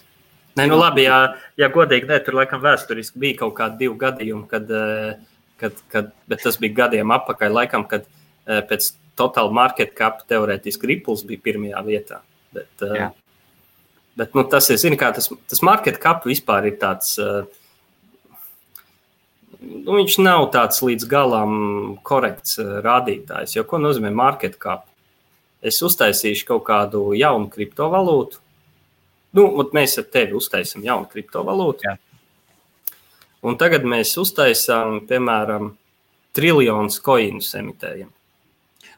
Nē, labi, ja godīgi, tur laikam vēsturiski bija kaut kādi 2 gadījumi, bet tas bija gadiem apakaļ, laikam, kad pēc Total Market Cap teorētiski Ripples bija pirmajā vietā. Bet tas ir, zini, kā tas Market Cap vispār ir tāds, viņš nav tāds līdz galam korekts rādītājs, jo ko nozīmē Market Cap? Es uztaisīšu kaut kādu jaunu kriptovalūtu. Mēs ar tevi uztaisam jaunu kriptovalūtu. Jā. Un tagad mēs uztaisām, piemēram, triljonus koinus emitējam.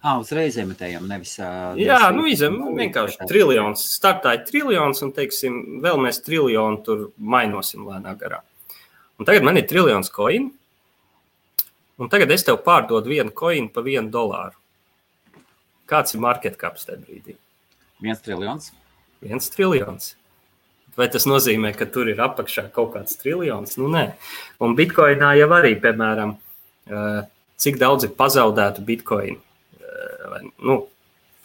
Uzreiz emitējam, nevis... Jā, vienkārši triljons. Startāja triljons un, teiksim, vēl mēs triljonu tur mainosim lēnā garā. Un tagad man ir triljons koinu. Un tagad es tev pārdodu vienu koinu pa $1. Kāds ir market caps tajā brīdī? 1 triljons. 1 triljons. Vai tas nozīmē, ka tur ir apakšā kaut kāds triljons? Nē. Un bitcoinā jau arī, piemēram, cik daudz ir pazaudētu bitcoinu.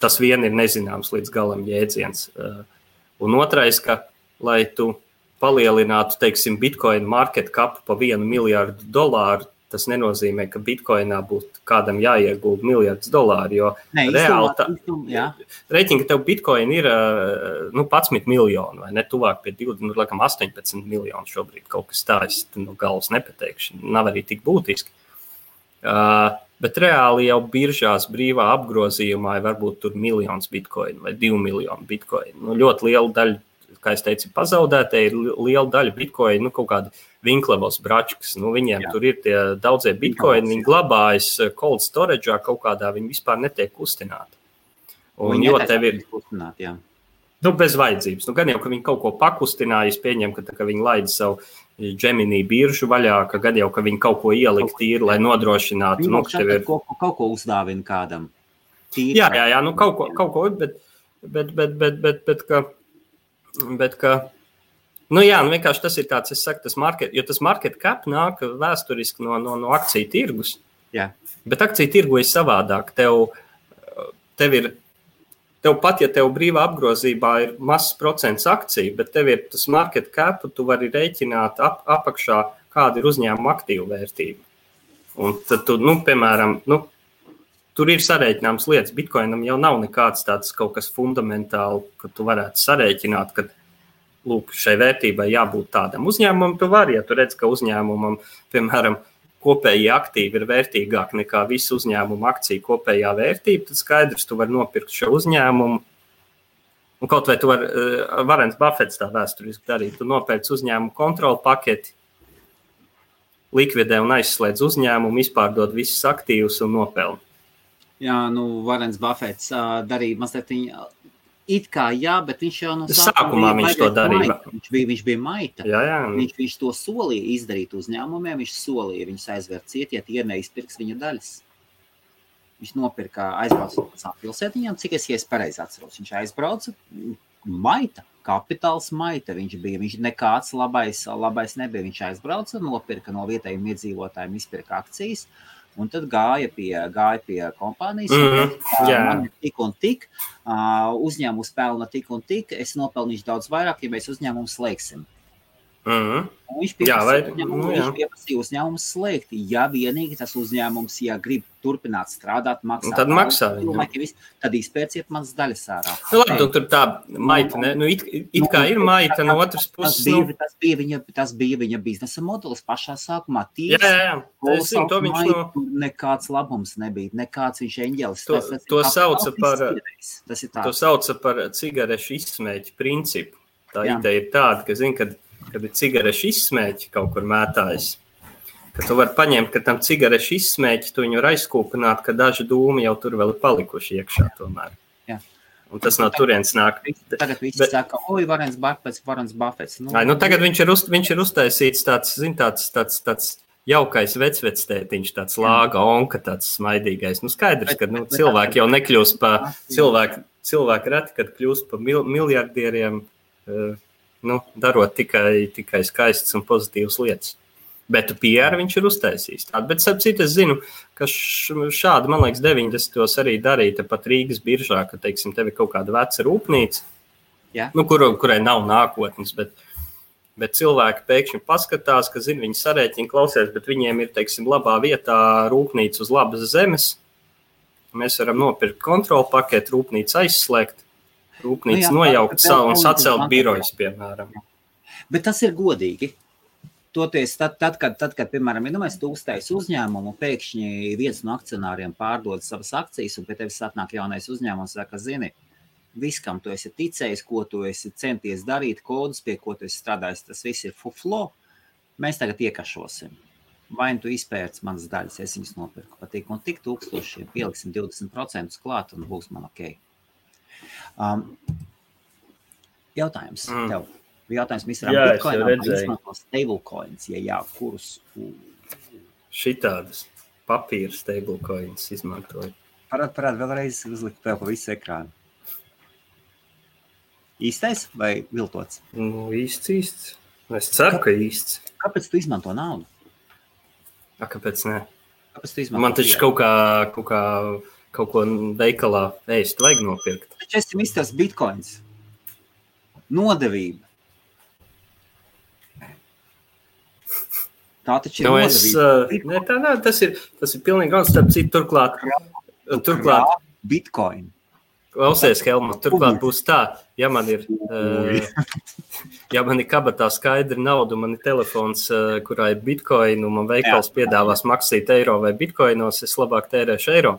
Tas vien ir nezināms līdz galam jēdziens. Un otrais, ka, lai tu palielinātu, teiksim, bitcoin market cap pa $1 miljardu, tas nenozīmē, ka bitcoinā būtu kādam jāiegulda $1 miljards, jo reāli reiķinga tev bitcoin ir 11 miljoni, vai ne, tuvāk pie 20, laikam 18 miljoni šobrīd kaut kas tā, es no galvas nepateikšu, nav arī tik būtiski. Bet reāli jau biržās brīvā apgrozījumā varbūt tur 1 miljons bitcoinu vai 2 miljoni bitcoinu. Ļoti liela daļa, kā es teicu, pazaudētē ir liela daļa bitcoinu, kaut kādi Vinklevos bračkas. Viņiem tur ir tie daudzie bitcoini, viņi glabājas cold storage'ā kaut kādā, viņi vispār netiek kustināti. Un jo tev ir kustināt, jā. Bez vajadzības. Gan jau, ka viņi kaut ko pakustināja, es pieņemu, ka viņi laida savu Gemini biržu vaļā, ka gad jau, ka viņi kaut ko ielikt tīri, lai nodrošinātu. Kaut ko uzdāvina kādam. Tīri, jā, kaut ko, bet ka, vienkārši tas ir tāds, es saku, tas market cap nāk vēsturiski no akciju tirgus. Jā. Bet akciju tirgu ir savādāk. Tev pat, ja tev brīvā apgrozībā ir mazs procents akciju, bet tev ir tas market cap, tu vari rēķināt apakšā, kāda ir uzņēmuma aktīvu vērtība. Un tad tu, piemēram, tur ir sarēķināms lietas. Bitcoinam jau nav nekāds tāds kaut kas fundamentāli, ka tu varētu sarēķināt, ka, šai vērtībai jābūt tādam uzņēmumam. Tu vari, ja tu redz, ka uzņēmumam, piemēram, kopējie aktīvi ir vērtīgāk nekā visu uzņēmumu akciju kopējā vērtība, tad skaidrs, tu vari nopirkt šo uzņēmumu. Un kaut vai tu Warrens Buffets tā vēsturiski darīt, tu nopērc uzņēmumu kontrolu paketi, likvidē un aizslēdz uzņēmumu, izpārdod visus aktīvus un nopelni. Jā, Warrens Buffets darīja mazliet it kā jā, bet viņš jau no sākumā viņš to darīja. Viņš bija maita. Jā. Viņš to solīja izdarīt uzņēmumiem, viņš solīja viņus aizvērt ciet, ja tie neizpirks viņa daļas. Viņš aizbrauca no pilsētiņām, cik es pareizi atceros. Viņš aizbrauca, maita, kapitāls maita viņš bija. Viņš nekāds labais nebija. Viņš aizbrauca, nopirka no vietējiem iedzīvotājiem, izpirka akcijas, un tad gāja pie kompānijas. Man ir tik un tik, uzņēmums pelna tik un tik, es nopelnīšu daudz vairāk, ja mēs uzņēmumu slēgsim. Viņš pieprasīja uzņēmumu slēgt, ja vienīgi tas uzņēmums, ja grib turpināt strādāt, maksāt. Tad maksā viņam. Tad izpērciet manas daļas ārā. Labi, tur tā maita, ne? It kā ir maita no otras puses. Tas bija viņa biznesa modelis pašā sākumā. Nekāds labums nebija, nekāds viņš eņģelis. To sauca par cigarešu izsmēķu principu. Tā ideja ir tāda, ka zin, kad ir cigarešu izsmēķi kaut kur mētājas, ka tu vari paņemt, ka tam cigarešu izsmēķi, tu viņu var aizkūpināt, ka daži dūmi jau tur vēl ir palikuši iekšā tomēr. Jā. Un tas no turienes nāk. Tagad visi saka, Warrens Buffets. Tagad viņš ir uztaisīts tāds jaukais vecvectētiņš, tāds lāga onka, tāds smaidīgais. Skaidrs, ka cilvēki jau nekļūst pa cilvēki reti, kad kļūst pa miljardieriem, darot tikai skaistas un pozitīvas lietas. Bet PR viņš ir uztaisījis. Bet sapcīt, es zinu, ka šādi, man liekas, 90. arī darīja pat Rīgas biržā, ka, teiksim, tev ir kaut kāda veca rūpnīca, kurai nav nākotnes, bet cilvēki pēkšņi paskatās, ka, zin, viņi sarēķina klausies, bet viņiem ir, teiksim, labā vietā rūpnīca uz labas zemes. Mēs varam nopirkt kontrolu paketu, rūpnīcu aizslēgt, rūpnīca nojaukt un sacelt birojas, piemēram. Bet tas ir godīgi. Toties, tad, kad piemēram, tu uztaisi uzņēmumu, pēkšņi viens no akcionāriem pārdod savas akcijas, un pie tevis atnāk jaunais uzņēmums, saka, zini, viss, kam tu esi ticējis, ko tu esi centies darīt, kodus, pie ko tu esi strādājis, tas viss ir fuflo, mēs tagad iekašosim. Vai tu izpērci manas daļas, es viņas nopirku pa tik un tik tūkstošiem, pieliksim 20% klāt, un būs man ok. Jautājums tev. Jautājums Mr. Bitcoinam, vai izmanto stablecoins, ja jā, kurus? Šitādas papīra stablecoins izmantoju. Parād vēlreiz uzlikt tev pa visu ekrānu. Īstais vai viltots? Īsts. Es ceru, ka īsts. Kāpēc tu izmanto naudu? Kāpēc ne? Kāpēc tu izmanto? Man taču kaut ko veikalā ēst vajag nopirkt. Taču esi Mr. Bitcoins. Nodevība. Tā taču ir nodevība. Tā nav, tas ir pilnīgi gan starp citu turklāt. Bitcoin. Klausies, Helmut, turklāt būs tā, ja man ir kabatā skaidra nauda, man ir telefons, kurā ir bitcoin, un man veikals piedāvās maksīt eiro vai bitcoinos, es labāk tērēšu eiro.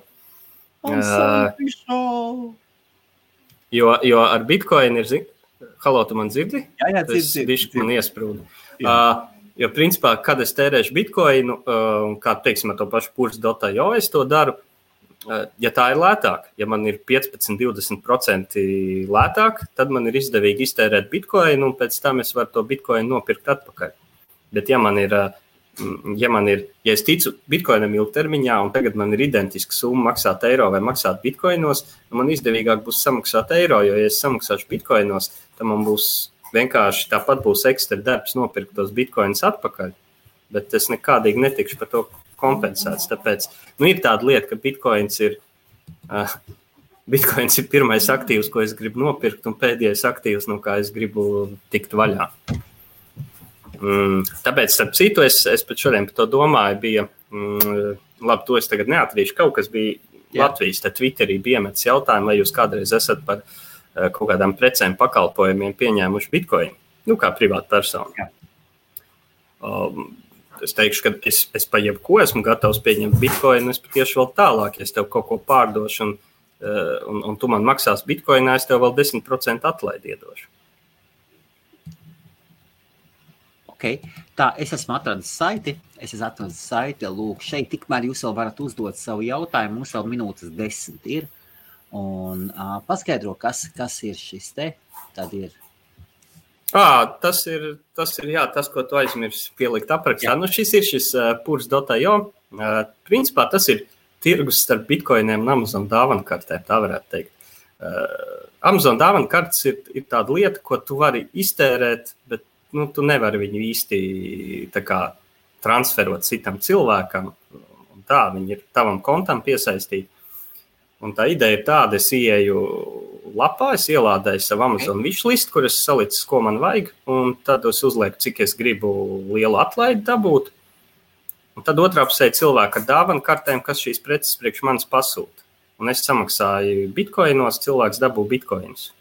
Jo ar bitcoin ir, halo, tu man dzirdi? Jā, dzirdi. Bišķi man iesprūda. Jo principā, kad es tērēšu bitcoinu, kā teiksim ar to pašu purs.io, es to daru, ja tā ir lētāk, ja man ir 15-20% lētāk, tad man ir izdevīgi iztērēt bitcoinu, un pēc tam es varu to bitcoinu nopirkt atpakaļ. Bet ja es ticu bitcoinam ilgtermiņā, un tagad man ir identiska summa maksāt eiro vai maksāt bitcoinos, man izdevīgāk būs samaksāt eiro, jo ja es samaksāšu bitcoinos, tad man būs vienkārši tāpat būs ekstra darbs nopirkt tos bitcoinus atpakaļ, bet es nekādīgi netikšu par to kompensēts. Tāpēc ir tāda lieta, ka bitcoins ir pirmais aktīvs, ko es gribu nopirkt, un pēdējais aktīvs, no kā es gribu tikt vaļā. Tāpēc, starp citu, es pat šodien par to domāju, bija, labi, to es tagad neatrīšu, kaut kas bija Latvijas, tad Twitterī bija iemetis jautājumu, vai jūs kādreiz esat par kaut kādām precēm pakalpojumiem pieņēmuši bitcoinu, kā privāta persona. Es teikšu, ka es pa jebko esmu gatavs pieņemt bitcoinu, es patieši vēl tālāk, ja es tev kaut ko pārdošu un tu man maksās bitcoinā, es tev vēl 10% atlaidi iedošu. Ok, tā, es esmu atradis saiti, lūk, šeit tikmēr jūs vēl varat uzdot savu jautājumu, mums vēl minūtes 10 ir, un paskaidro, kas ir šis te, tad ir. Tas ir, jā, tas, ko tu aizmirsi pielikt aprakstā. Šis ir purs.io. Principā tas ir tirgus starp bitkoiniem un Amazon dāvanu kartēm, tā varētu teikt. Amazon dāvanu kartes ir tāda lieta, ko tu vari iztērēt, bet tu nevari viņu īsti tā kā transferot citam cilvēkam. Un tā, viņi ir tavam kontam piesaistīti. Un tā ideja ir tāda, es ieeju lapā, es ielādēju savu Amazon wishlist, kur es salicis, ko man vajag, un tad es uzlieku, cik es gribu lielu atlaidi dabūt. Un tad otrā pusē cilvēki ar dāvanu kartēm, kas šīs preces priekš manis pasūta. Un es samaksāju bitkoinos, cilvēks dabū bitkoinus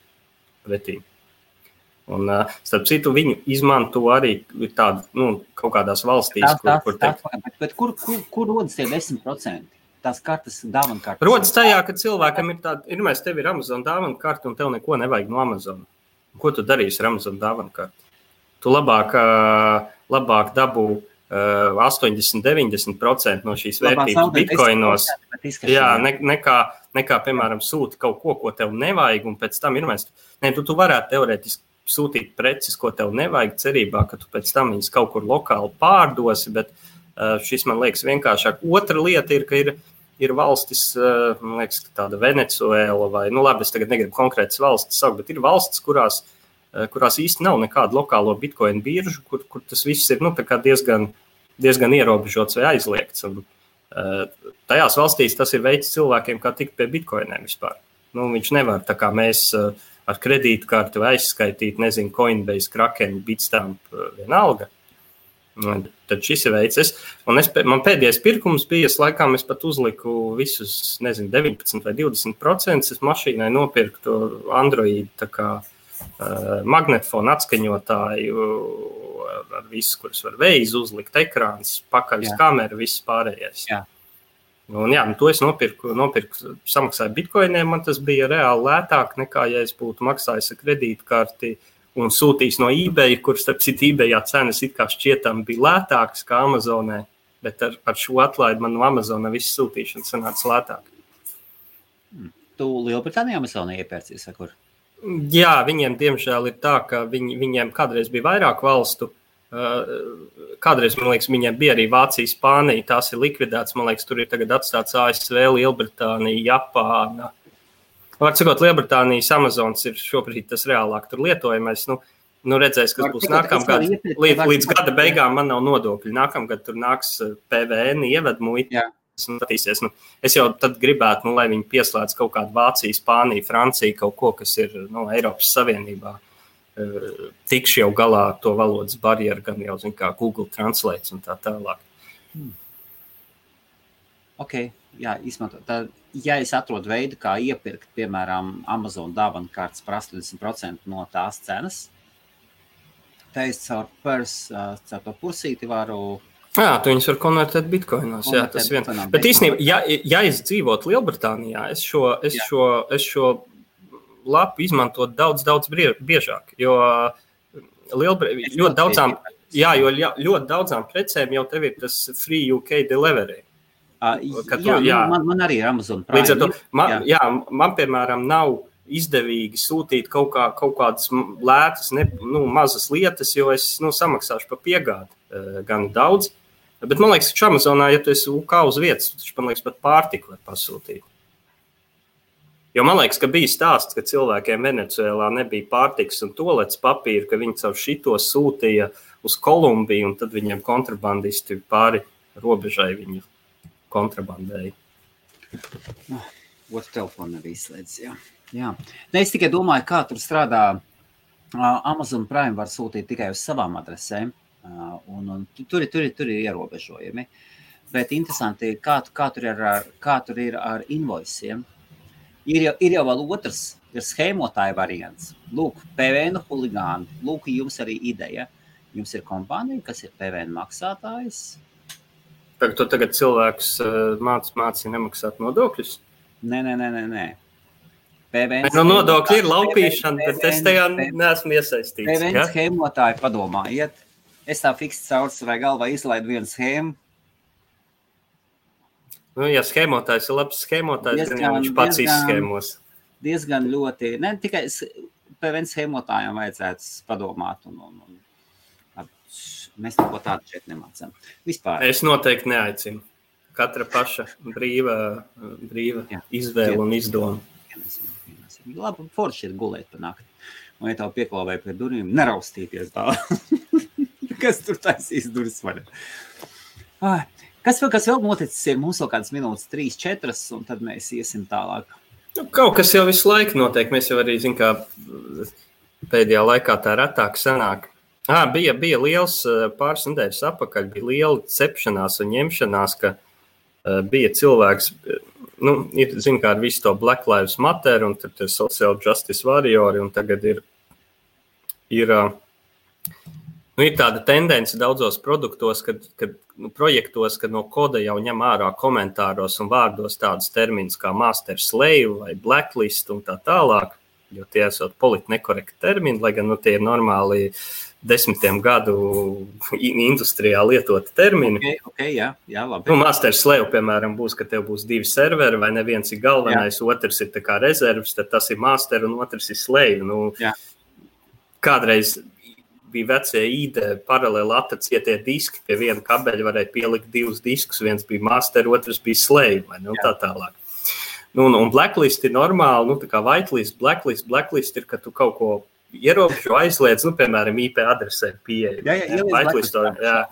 pretī. Un, starp citu, viņu izmanto arī tādu, kaut kādās valstīs, Bet kur rodas tie 10%? Tās kartes, dāvanu kartes? Rodas tajā, ka cilvēkam ir tāda, tev ir Amazon dāvanu karte un tev neko nevajag no Amazon. Ko tu darīsi ar Amazon dāvanu karti? Tu labāk dabū 80-90% no šīs vērtības bitkoinos, nekā, piemēram, sūti kaut ko tev nevajag, un pēc tam tu varētu teorētiski sūtīt preces, ko tev nevajag, cerībā, ka tu pēc tam viņas kaut kur lokāli pārdosi, bet šis man liekas vienkāršāk. Otra lieta ir, ka ir valstis, man liekas, tāda Venecuēla vai, labi, es tagad negribu konkrētas valstis saukt, bet ir valstis, kurās īsti nav nekādu lokālo bitcoin biržu, kur tas viss ir tā kā diezgan ierobežots vai aizliegts. Un, tajās valstīs tas ir veids cilvēkiem, kā tikt pie bitcoiniem vispār. Viņš nevar, tā kā mēs ar kredītkarti vai aizskaitīt, Coinbase, Kraken, Bitstamp, vienalga. Tad šis ir veids. Man pēdējais pirkums bija, laikam es pat uzliku visus, 19 vai 20%, es mašīnai nopirktu Android, tā kā magnetofonu atskaņotāju ar visu, kuras var veiz uzlikt, ekrāns, pakaļas kamera, viss pārējais. Jā. Un to es nopirku, samaksāju bitkoiniem, man tas bija reāli lētāk nekā, ja es būtu maksājis ar kredītkarti un sūtījis no eBay, kur starp citu eBayā cenas it kā šķietam bija lētākas kā Amazonē, bet ar šo atlaidi man no Amazona viss sūtīšana sanāca lētāk. Tu Lielbritānijā Amazonē iepērcies, vai kur? Jā, viņiem diemžēl ir tā, ka viņiem kādreiz bija vairāk valstu. Kādreiz, man liekas, viņiem bija arī Vācija, Spānija, tās ir likvidētas. Man liekas, tur ir tagad atstāts ASV, Lielbritānija, Japāna. Var sakot, Lielbritānijas Amazons ir šobrīd tas reālāk tur lietojamais. Redzēs, kas būs nākamgad. Līdz gada beigām man nav nodokļi. Nākamgad tur nāks PVN, ievedmuita. Es jau tad gribētu, lai viņi pieslēdz kaut kādu Vāciju, Spāniju, Franciju, kaut ko, kas ir Eiropas Savienībā. Tikšu jau galā to valodas barjeru, gan jau kā Google Translate un tā tālāk. Ok, jā, izmantot. Tad, ja es atrodu veidu, kā iepirkt, piemēram, Amazon dāvanu kartes par 80% no tās cenas, tad es caur to pursīti varu... Jā, tu viņus var konvertēt bitkoinos, jā, tas vien. Bet īstenībā, ja es dzīvotu Lielbritānijā, es šo lapu izmantot daudz biežāk, jo ļoti daudzām precēm jau tev ir tas free UK delivery. Man arī ir Amazon Prime. Līdz ar to, man piemēram nav izdevīgi sūtīt kaut kādas lētas, mazas lietas, jo es samaksāšu par piegādi gan daudz. Bet man liekas, ka Amazonā, ja tu esi UK uz vietas, man liekas, pat pārtiku var pasūtīt. Jo man liekas, ka bija stāsts, ka cilvēkiem Venecuēlā nebija pārtikas un tolets papīra, ka viņi caur šito sūtīja uz Kolumbiju, un tad viņiem kontrabandisti pāri robežai viņu kontrabandēja. Otru telefonu arī izslēdz, jā. Es tikai domāju, kā tur strādā. Amazon Prime var sūtīt tikai uz savām adresēm. Un tur ir ierobežojumi, bet interesanti, kā tur ir ar invoiciem. Ir jau vēl otrs, ir schēmotāja variants. Lūk, PVN huligāni, lūk, jums arī ideja. Jums ir kompānija, kas ir PVN maksātājs. Tu tagad cilvēkus māci nemaksāt nodokļus? Nē. PVN nodokļi ir laupīšana, bet es tajā neesmu iesaistīts. PVN schēmotāji padomājiet. Es tā fiksti caur savai galvā izlaidu vienu schēmu. Ja schēmotājs ir labs schēmotājs, tad viņš pats izschēmos. Diezgan ļoti, ne tikai PVN schēmotājiem vajadzētu padomāt. Mēs neko tādu šeit nemācām. Vispār. Es noteikti neaicinu. katra paša brīva izvēle un izdoma. Labi, forši ir gulēt pa nakti. Un, ja tev pieklāvēja pie durvīm, neraustīties tā. Kas tur taisīs durvis vaļā? Kas vēl noticis ir? Mums vēl kādas minūtes 3-4, un tad mēs iesim tālāk. Nu, kaut kas jau visu laiku notiek. Mēs jau arī, kā pēdējā laikā tā retāk sanāk. Bija liels pāris nedēļas apakaļ, bija liela cepšanās un ņemšanās, ka bija cilvēks, ir, kā ar visu to Black Lives Matter, un tad ir Social Justice Warriori, un tagad ir tāda tendence daudzos produktos, projektos, kad no koda jau ņem ārā komentāros un vārdos tādus terminus kā master slave vai blacklist un tā tālāk, jo tie esot politi nekorekti termini, lai gan tie ir normāli 10 gadu industrijā lietoti termini. Okay, jā, labi. Master slave, piemēram, būs, ka tev būs 2 serveri, vai neviens ir galvenais, otrs ir tā kā rezervs, tad tas ir master un otrs ir slave. Kādreiz bija vecie ID paralēli atacietie diski, pie viena kabeļa varēja pielikt 2 diskus, viens bija master, otrs bija slave, vai ne, un tā tālāk. Un blacklist ir normāli, tā kā whitelist, blacklist ir, ka tu kaut ko ierobežo aizliedz, piemēram, IP adresē pieeja. Jā.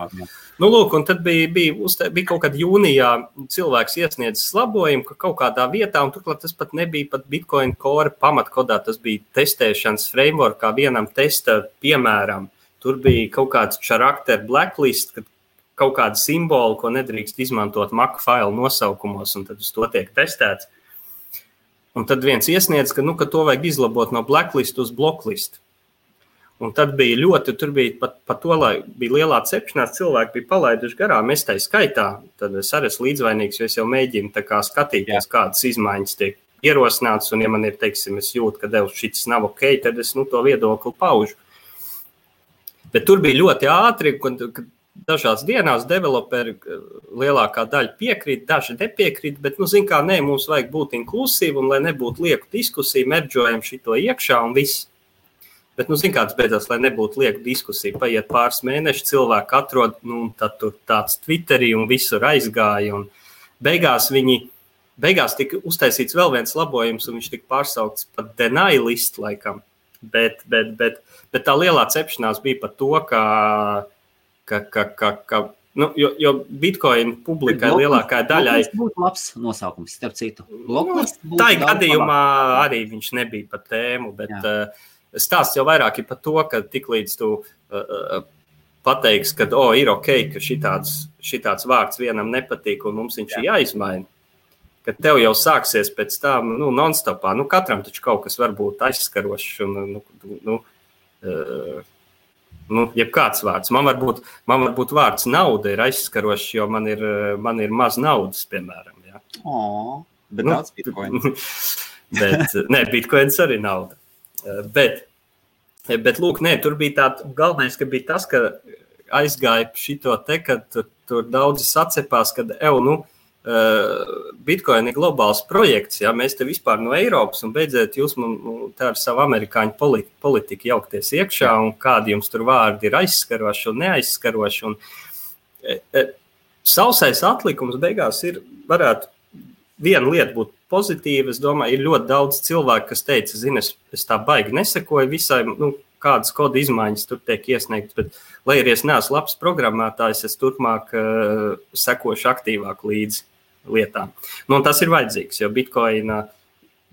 Lūk, un tad bija kaut kad jūnijā cilvēks iesniedzis labojumu, ka kaut kādā vietā, un turklāt tas pat nebija pat Bitcoin Core pamatkodā, tas bija testēšanas framework kā vienam testa piemēram. Tur bija kaut kāds charakter blacklist, kad kaut kāda simbola, ko nedrīkst izmantot Mac failu nosaukumos, un tad uz to tiek testēts. Un tad viens iesniedz, ka to vajag izlabot no blacklist uz blocklist. Un tad bija tur bija pat to, lai bija lielā cepšanās, cilvēki bija palaiduši garām, es tai skaitā, tad es arī esmu līdzvainīgs, jo es jau mēģinu tā kā skatīties, kādas izmaiņas tiek ierosināts, un ja man ir, teiksim, es jūtu, ka šis nav ok, tad es to viedokli paužu. Bet tur bija ļoti ātri, kad dažās dienās developeri lielākā daļa piekrīt, daži nepiekrīt, bet, mums vajag būt inklusīvi, un lai nebūtu lieku diskusiju, merdžojam šito iekšā un viss. Bet, kāds beidzās, lai nebūtu lieku diskusiju, paiet pāris mēneši, cilvēki atrod, tad tur tāds Twitterī un visur aizgāja, un beigās tika uztaisīts vēl viens labojums, un viņš tika pārsaukts pat deny list laikam, bet tā lielā cepšanās bija par to, jo Bitcoin publikai lielākā daļai... Tas būtu labs nosaukums, starp citu. Tā gadījumā arī viņš nebija par tēmu, bet stāsts jau vairāk ir par to, ka tiklīdz tu pateiksi, ka ir ok, ka šitāds vārds vienam nepatīk un mums viņš ir jāizmaina, ka tev jau sāksies pēc tam non-stopā. Katram taču kaut kas var būt aizskarošs un jebkāds vārds. Man varbūt vārds nauda ir aizskarošs, jo man ir maz naudas, piemēram. Ja? Bet daudz bitcoins. Bitcoins arī nauda. Bet lūk, tur bija galvenais, ka bija tas, ka aizgāja šito te, ka tur daudzi sacepās, ka Bitcoin ir globāls projekts, ja mēs te vispār no Eiropas un beidzēt jūs te ar savu amerikāņu politiku jaukties iekšā un kādi jums tur vārdi ir aizskaroši un neaizskaroši. Un sausais atlikums beigās varētu viena lieta būt pozitīva. Es domāju, ir ļoti daudz cilvēku, kas teica, es tā baigi nesekoju visai, kādas koda izmaiņas tur tiek iesniegtas, bet, lai arī es neesmu labs programmētājs, es turpmāk sekošu aktīvāk līdzi lietām. Un tas ir vajadzīgs, jo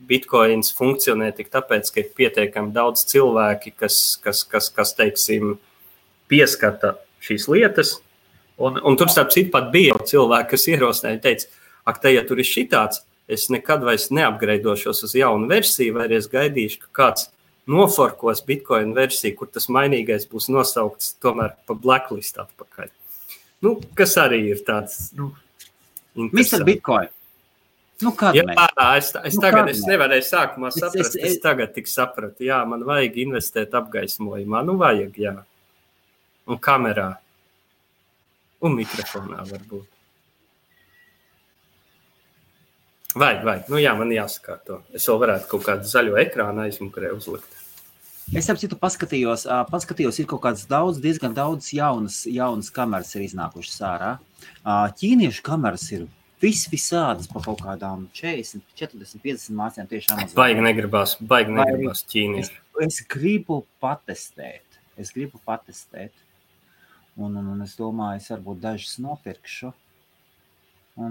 Bitcoins funkcionē tik tāpēc, ka ir pietiekami daudz cilvēki, kas teiksim, pieskata šīs lietas, un tur starp citu pat bija cilvēki, kas ierosināja, teica, ja tur ir šitāds, es nekad vairs neapgreidošos uz jaunu versiju, vai arī es gaidīšu, ka kāds noforkos Bitcoin versiju, kur tas mainīgais būs nosaukts tomēr pa blacklist atpakaļ. Kas arī ir tāds, Mr. Bitcoin. Es tagad nevarēju sākumā saprast, es tagad tik sapratu. Jā, man vajag investēt apgaismojumā. Vajag, jā. Un kamerā. Un mikrofonā varbūt. Vajag. Jā, man jāsakārto. Es vēl varētu kaut kādu zaļo ekrānu aizmukurē uzlikt. Es ap citu paskatījos, ir kaut kāds diezgan daudz jaunas kameras ir iznākušas ārā. Ķīniešu kameras ir visādas pa kaut kādām 40, 40, 50 mācījām tieši Amazon. Baigi negribās ķīnieši. Es gribu patestēt. Un es domāju, es varbūt dažas nopirkšu. Un,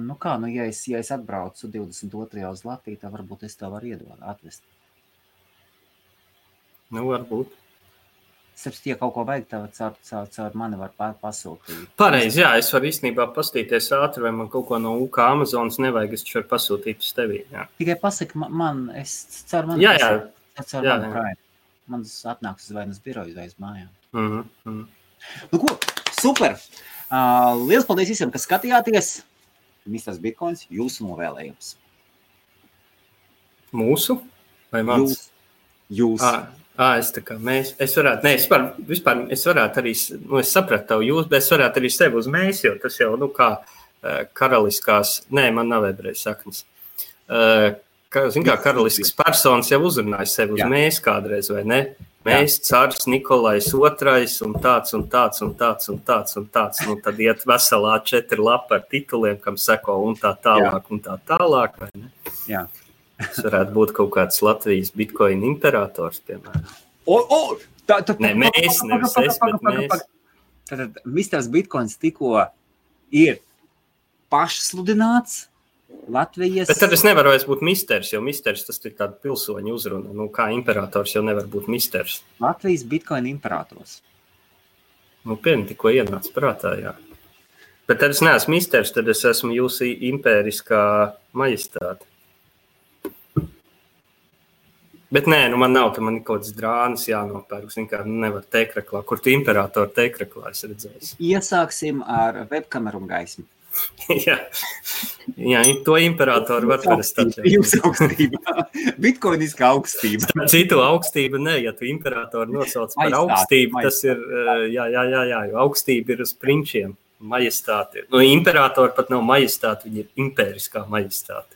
ja es atbraucu 22. uz Latviju, tad varbūt es tev varu atvest. Varbūt. Sapratu, ja kaut ko vajag, tad caur mani var pasūtīt. Pareizi, jā, es varu īstenībā pastīties ātri, vai man kaut ko no UK Amazonas nevajag, es varu pasūtīt uz tevi. Jā. Tikai pasaki man, es caur mani Prime. Man atnāks uz vainas biroju vai uz mājām. Nu ko, super! Liels paldies visiem, kas skatījāties. Misters Bitcoins, jūsu novēlējums. Mūsu? Vai mans? Jūs. Es tā kā mēs. Es varētu, vispār es varētu arī, es sapratu tavu jūs, bet es varētu arī sevi uz mēs, jo tas jau, kā karaliskās, man nav ebreju saknes. Karaliskas personas jau uzrunāja sevi uz mēs kādreiz, vai ne? Mēs, cārs Nikolais II un tāds. Nu, tad iet veselā 4 lapa ar tituliem, kam seko un tā tālāk, vai ne? Jā. Tas varētu būt kaut kāds Latvijas Bitcoin imperators, piemēram. Mēs, nevis es, bet mēs. Tad Misters Bitcoins tikko ir pašsludināts Latvijas... Bet tad es nevaru vairs būt misters, jo misters tas ir tāda pilsoņa uzruna. Kā imperators jau nevar būt misters. Latvijas Bitcoin imperators. Tikko ienāca prātā, jā. Bet tad es neesmu misters, tad es esmu jūsu impēriskā majestāte. Bet man nav, man ir kaut kāds drānas jānopērk. Nevar teikreklā. Kur tu imperatoru teikreklā esi redzējis? Iesāksim ar webkameru un gaismu. Jā, to imperatoru var parastāt. Jūsu augstība. Bitcoiniskā augstība. Citu augstība ne, ja tu imperatoru nosauc par augstību, tas ir, jā, jo augstība ir uz prinčiem, majestāti. Imperatori pat nav majestāti, viņi ir impēriskā majestāti.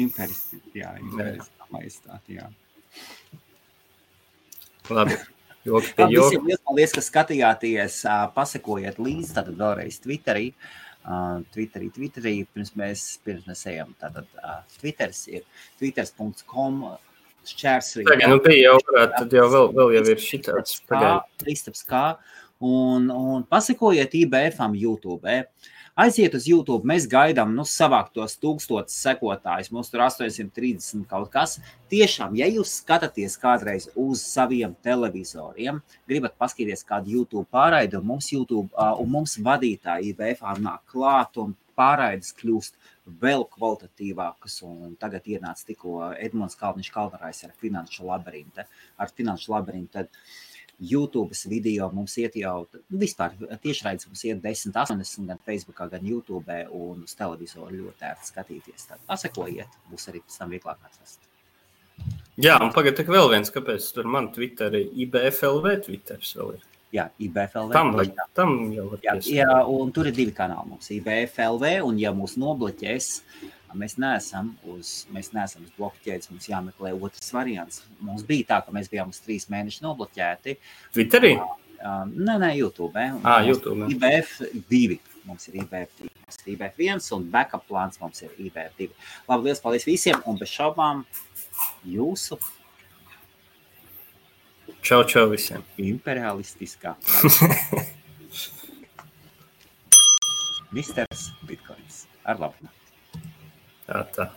Impēriskā majestāti, jā. Labi, joki pie joki. Visiem liels paldies, ka skatījāties, pasekojiet līdzi, tātad vēlreiz Twitterī, pirms mēs ejam. Tātad Twitters ir twitters.com /. Tagad, bija jau varētu, tad jau vēl jau ir šitāds. Kristaps K. Un pasekojiet IBF-am YouTube. Aiziet uz YouTube, mēs gaidām, savākt tos 1000 sekotājus, mums tur 830 kaut kas. Tiešām, ja jūs skatāties kādreiz uz saviem televizoriem, gribat paskatīties kādu YouTube pārraidi, un mums vadītāji IBF-ā nāk klāt, un pārraides kļūst vēl kvalitatīvākas, un tagad ienāca tikko Edmunds Kalniņš-Kalvarājs ar Finanšu labirintu, tad YouTube's video mums iet jau, vispār tiešraides mums iet 10.80 gan Facebookā, gan YouTube, un uz televizoru ļoti ērti skatīties. Tad pasekojiet, būs arī pēc tam vieglāk atrast. Jā, un pagad tik vēl viens, kāpēc tur man Twitteri IBFLV Twitters vēl ir. Jā, IBFLV. Tam jau var piesākt. Jā, un tur ir 2 kanāli mums, IBFLV, un ja mūs nobloķēs, mēs neesam uz bloku ķēdes, mums jāmeklē otrs variants. Mums bija tā, ka mēs bijām uz 3 mēneši nobloķēti. Twitterī? Nē, YouTube. YouTube. IBF2. Mums ir IBF2. Mums ir IBF1 un backup plāns mums ir IBF2. Labi, liels paldies visiem un bez šaubām jūsu. Čau visiem. Imperialistiskā. Misters Bitcoins. Ar labu. Tā.